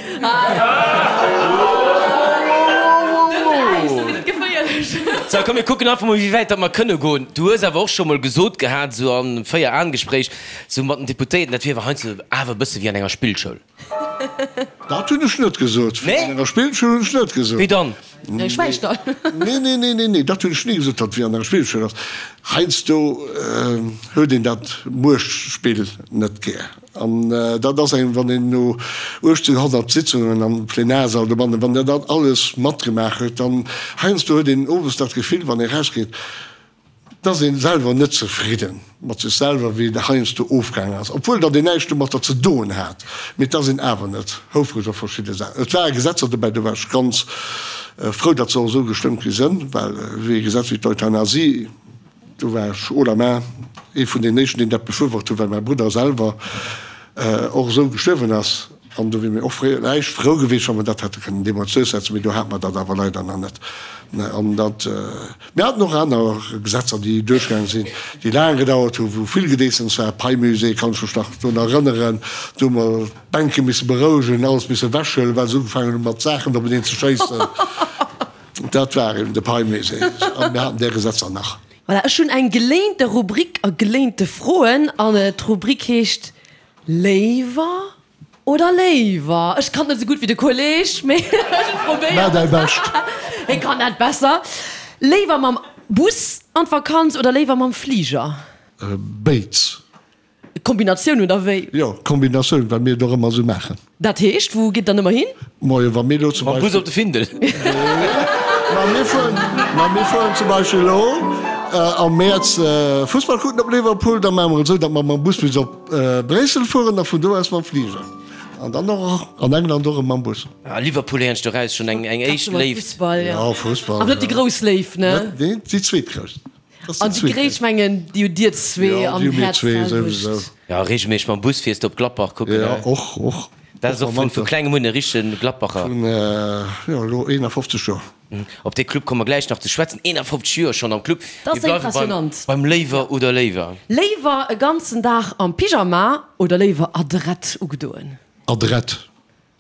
Dënnt Äis, da gëtt et geféierlech. Sou, komm mir kucken einfach mol wéi wäit datt mer kënne goen. Du hues awer och scho mol gesot gehat, sou an Véier-Aen-Gespréich, sou mat den Deputéierten, dat wier awer heiansdo awer e bësse wéi an enger Spillschoul. Dat hunn ech net gesot. Wéi an enger Spillschoul hunn ech net gesot. Wéi dann? Nee, schwäig da. Nee, nee, nee, nee, nee, dat hunn ech ni gesot, datt et wéi an enger Spillschoul ass. Heiansdo huet een dat Muechtspill net gär. An dat ass engem, wann een no 1800 Sitzungen am Plenarsall dobannen, wann der dat alles matgemaach huet, dann heiansdo huet een owes dat Gefill, wann ee rausgeet, Et ass een selwer net zefridden mat sech selwer wéi et heiansdo ofgaangen ass, obwuel datt een näischt domatter ze doen hat, mee et ass een awer net houfreg op verschidde Saachen. Et ware Gesetzer dobäi, do war ech ganz frou, datt se och esou gestëmmt gi sënn, well wéi e Gesetz wéi d'Euthanasie, do war ech haut la main ee vun den éischten, deen dat befürwort huet, well mäi Brudder selwer och esou gestuerwen ass. An do wier mir och vläicht frou gewiescht, wa mer dat hätte kënnen deemools duerchsetzen, mee do hate mer dat awer leider nach net. An dat, mir haten och aner Gesetzer, déi duerchgaange sinn, déi laang gedauert hunn, wou vill Gedeessems war. Pei-Musée kann ech mech nach drun erënneren, do hu mer d'Bänke misse berouegen, alles misse ewechhuelen, well se ugefaangen hu mat Saachen openeen ze schéissen. Dat war eben de Pei-Musée. A mir haten där Gesetzer nach. Voilà, ech hunn eng geléinte Rubrik a geléinte Froen an d'Rubrik heescht Léiwer oder léiwer? Ech kann net esou gutt wéi de Kolleg, mee ech probéieren. Maach däi Bescht. Hie kann dat besser. Léiwer mam Bus an d'Vakanz oder léiwer mam Fliger? Béids. Kombinatioun oder wéi? Jo, Kombinatioun, well mir et och ëmmer esou maachen. Dat heescht, wou gitt der dann ëmmer hin? Moie, wa mir elo zum Mam Bus op de Findel. Ma mir fueren, ma mir fueren zum Beispill elo am Mäerz Fussball kucken op Liverpool, da maache mer et esou, datt mer mam Bus bis op Bréissel fueren a vun do aus mam Fliger. An dann och an England och erëm mam Bus. Ah, Liverpool héieren ech doraus schonn eng eng éischt Léift. Fussball, jo. Fussball, Awer net déi grouss Léift, ne? Net, nee, déi zweetgrouss. An déi gréisst, mengen, déi hutt Dir zwee am Häerz d'selwecht. Jo, reegelméisseg mam Bus fiers de op Gladbach kucken, ne? Jo, och, och. Dat ass och vun vu klengem un e richtegen Gladbacher. Vun, jo, elo 51 Joer. Op dee Club komme mer gläich nach ze schwätzen. 51 Joer schonn am Club. Dat ass Mir bleiwe beim, impressionant. beim Léiwer oder Léiwer. Léiwer e ganzen Dag am Pyjama oder léiwer adrett ugedoen? Adrett.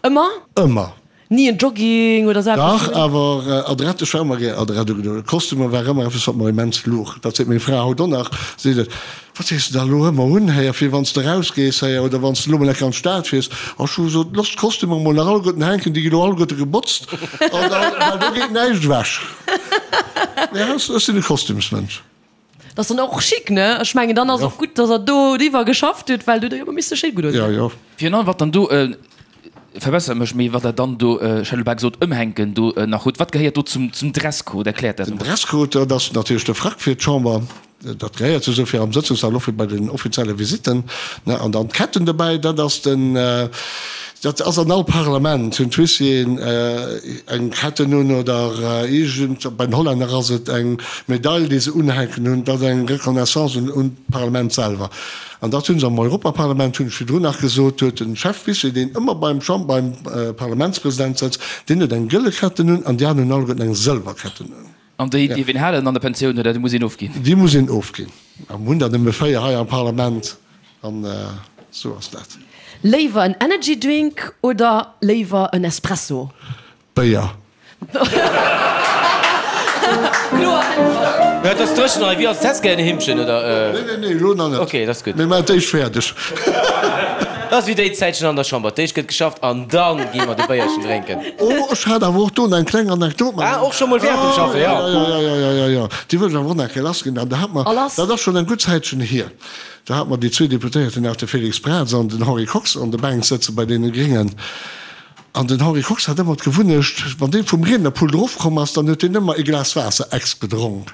Ëmmer? Ëmmer. Ni en Jogging oder sou eppes? Dach, awer adrett, ech war ëmmer gär adrett ugedoen. Kostümer war ëmmer eppes, wat mer immens luch. Dat seet meng Fra haut och nach, seet et, Wat dees de da elo ëmmer un, héier, fir wann s de erausgees, héier, oder wann s de elo mol enke an d'Stad fiers? A ech hu gesot, Looss d'Kostümer mol nach alleguerten hänken, déi gi lo alleguerte gebotzt, an da, well do geet näischt ewech. Ja, ech sinn e Kostümsmënsch. Dat ass dann och chic, ne? Ech mengen, dann ass och gutt, dass Der do driwwer geschafft hutt, well do hutt Der jo ëmmer misse schéi gutt ausgesinn. Ja, jo. Virun allem, wat dann do, verbessert mech, mee wat Der dann do, ech hätt elo bal gesot, ëmhänken do nach hutt, wat gehéiert do zum Dresscode? Erkläert dat Den emol. Dresscode, dat ass natierlech de Frack fir d'Chamber, dat gehéiert sou fir am Sëtzungssall, och fir bei den offizielle Visitten, ne? An dann d'Ketten dobäi, dat ass den, Dat ass an all Parlament, hunn d'Huissieren eng Ketten un oder iergend, bei den Hollänner ass et eng Medail, déi se unhänken hunn. Dat ass eng Reconnaissance un d'Parlament selwer. An dat hu se am Europaparlament, hunn ech virdrun nach gesot, huet de Chef-Huissier, deen ëmmer beim Champ-, beim Parlamentspresident sëtzt, deen huet eng gëlle Ketten un an déi aner hunn alleguerten eng sëlwer Ketten un. An déi dierf een halen an der Pensioun oder déi muss een ofginn? Déi muss een ofginn. A mir hunn der nëmme 4 hei am Parlament an esou ass dat. Léiwer en Energy Drink oder léiwer en Espresso? Béier. Kloer Äntwert. Et ass dréchen hei. Wéi ass et? Häss gär en Himmchen oder? Nee, nee, nee, elo nach net. Ok, dat ass gutt. Mir maachen d'éischt fäerdeg. Dat ass wéi déi Zäitchen an der Chamber. D'éischt gëtt geschafft an dann gi mer de Béierchen drénken. Oh, ech hat awer och do eng kleng Anekdot. Ah, och scho mol während dem Schaffen, jo. Jo, jo, jo, jo, jo, jo. Déi wëll ech awer och nach eng Kéier lassginn. An da hat mer, dat ass schonn eng gutt Zäitchen hier, da hat mer déi zwee Deputéierten nach, de Félix Braz an den Henri Kox, an der Bänk sëtze bei deene Gréngen. An den Henri Kox hat ëmmer d'Gewunnecht, wann dee vum Riednerpult erofkomm ass, dann huet deen ëmmer e Glas Waasser ex gedronk.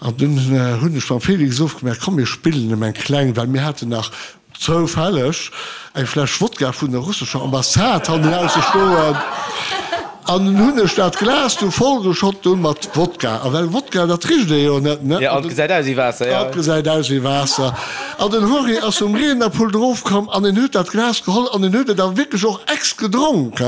An dunn hunn ech mam Félix ofgemaach, komm mir spillen em eng kleng, well mir haten nach zoufälleg eng Fläsch Wodka vun der russescher Ambassade hannenausse stoen. An dunn hunn ech dat Glas du vollgeschott dunn mat Wodka. A well Wodka, dat richt ee jo net, ne? Jo, an et gesäit aus wéi Waasser, jo. An et gesäit aus wéi Waasser. An den Henri ass vum Riednerpult erofkomm an en huet dat Glas geholl an en huet et awer wierklech och ex gedronk.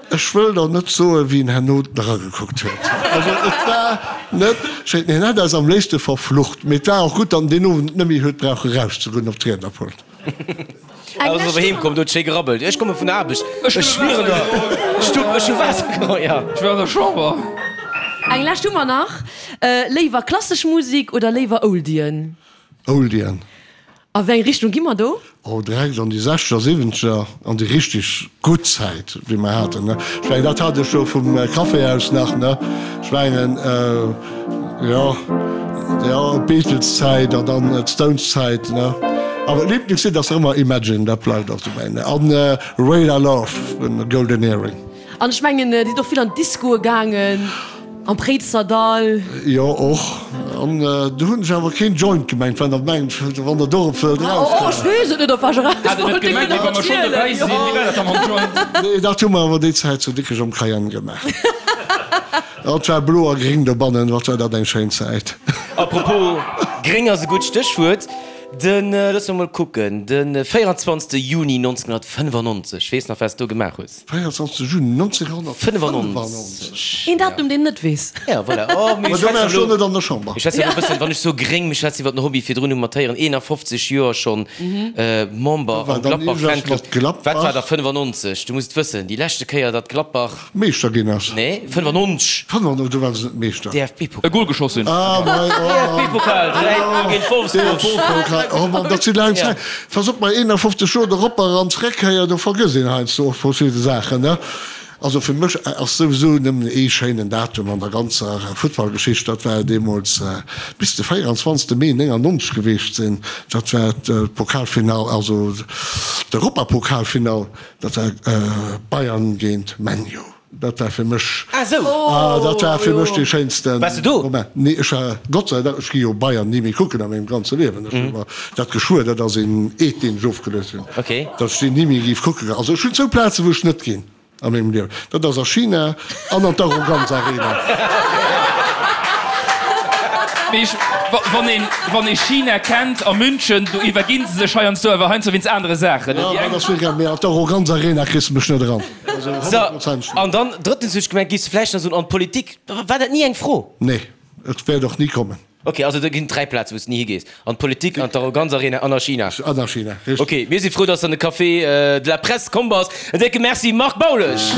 Ech wëll der net soen, wéi en herno dragekuckt huet. Also et war net schéin. Hien hätt eis am léifste verflucht, mee et war och gutt, datt en deen Owend net méi huet brauche rauszegoen op d'Riednerpult. Ass awer heem komm, do huet schéi gerabbelt. Ech komme vun der Aarbecht, ech schmieren der Stupp, ech hu Waasser geholl, jo. Ech war an der Chamber. Eng lescht hu mer nach. Léiwer klassesch Musik oder léiwer Oldien? Oldien. A wéi eng Richtung gi mer do? Oh, direkt an déi sechzeger, siwwenzeger, an déi richteg gutt Zäit, wéi mer haten, ne. Ech mengen, dat hat ech jo vum Café aus nach, ne. Ech mengen, jo, jo, d'Beatles-Zäit an dann d'Stones-Zäit, ne. Awer d'Liblingslidd ass nach ëmmer Imagine, dat bleift och dobäi, ne. An Radar Love vun Golden Earring. An ech mengen, Dir sidd och vill an d'Discoe gaangen, am Préizerdahl. Jo, och. An do hunn ech awer keen Joint gemengt, wann Der mengt, wann Der dorop wëllt erauskommen. Oh, ech weess et net, op wat ech eraus Hat et net gemengt, mee wa mer schonn dobäi sinn, wéi war dat da mam Joint? Nee, dat hu mer awer déi Zäit zu Dikrech am Cayenne gemaach. Et war blo a gréng dobannen, wat war dat eng schéin Zäit. Apropos gréng ass e gutt Stéchwuert. Den, loosse mer mol kucken, de 24. Juni 1995, weess nach, wat s do gemaach hues? 24 Juni 1995. Een Datum, deen net weess. Ja, voilà. Oh, mee ech schwätzen elo net an der Chamber. Ech schwätzen elo e bëssen, wann ech soe gréng, mir schwätzen iwwer den Hobby virdrun, hu mer d'Héieren, 51 Joer schonn Member am Gladbach Fanclub. Wat war da 95? Du muss et wëssen, déi leschte Kéier, datt Gladbach. Meeschter ginn ass. Nee, 95. 95, do ware se net Meeschter. DFB-Pokal. E Gol geschoss hunn. Ah, mei, oh. DFB-Pokal, 3, 0 géint Wolfsburg. DFB-Pokal, oh Mann, dat si laang Zäit. Pass op, bei 51 Joer de Ropper an d'Zréckkéier, do vergësst een heiansdo och verschidde Saachen, ne? Also fir mech ass souwisou nëmmen ee schéinen Datum an der ganzer Futtballgeschicht, dat war deemools bis de 24 Mee 99 geweecht sinn, dat war d'Pokalfinall, also d'Europapokalfinall, dat war Bayern géint ManU. Dat war fir mech, Ah sou! ah, dat war fir mech dee schéinste Waars de do? Moment. Nee, ech war, Gott sei Dank, ech gi jo Bayern ni méi kucken a mengem ganze Liewen. Ech hu mer dat geschwuer, dat ass een Eed, deen ech ofgeluecht hunn, Okay. datt ech déi ni méi géif kucke goen. Also ech hunn zwou Plazen, wou ech net ginn a mengem Liewen, dat ass a China an an d'Arroganz Arena. Mee ech, wann een, wann ee China kennt a München, do iwwerginn se sech heiansdo awer heiansdo wéinst anere Saachen. Jo, dat ass wierklech, mee an d'Arroganz Arena kriss de mech net eran. Also honnertprozenteg net. An dann drëttens huet ech gemengt, giffs de vläicht nach soen, an d'Politik, war dat ni eng Fro? Nee, et wäert och ni kommen. Ok, also do ginn et 3 Plazen, wou s de ni higees, an d'Politik, an d'Arroganz-Arena an a China. An a China, richteg. Ok, mir si frou, dass s de an de Café de la Presse komm bass. En décke Merci, Marc Baulesch!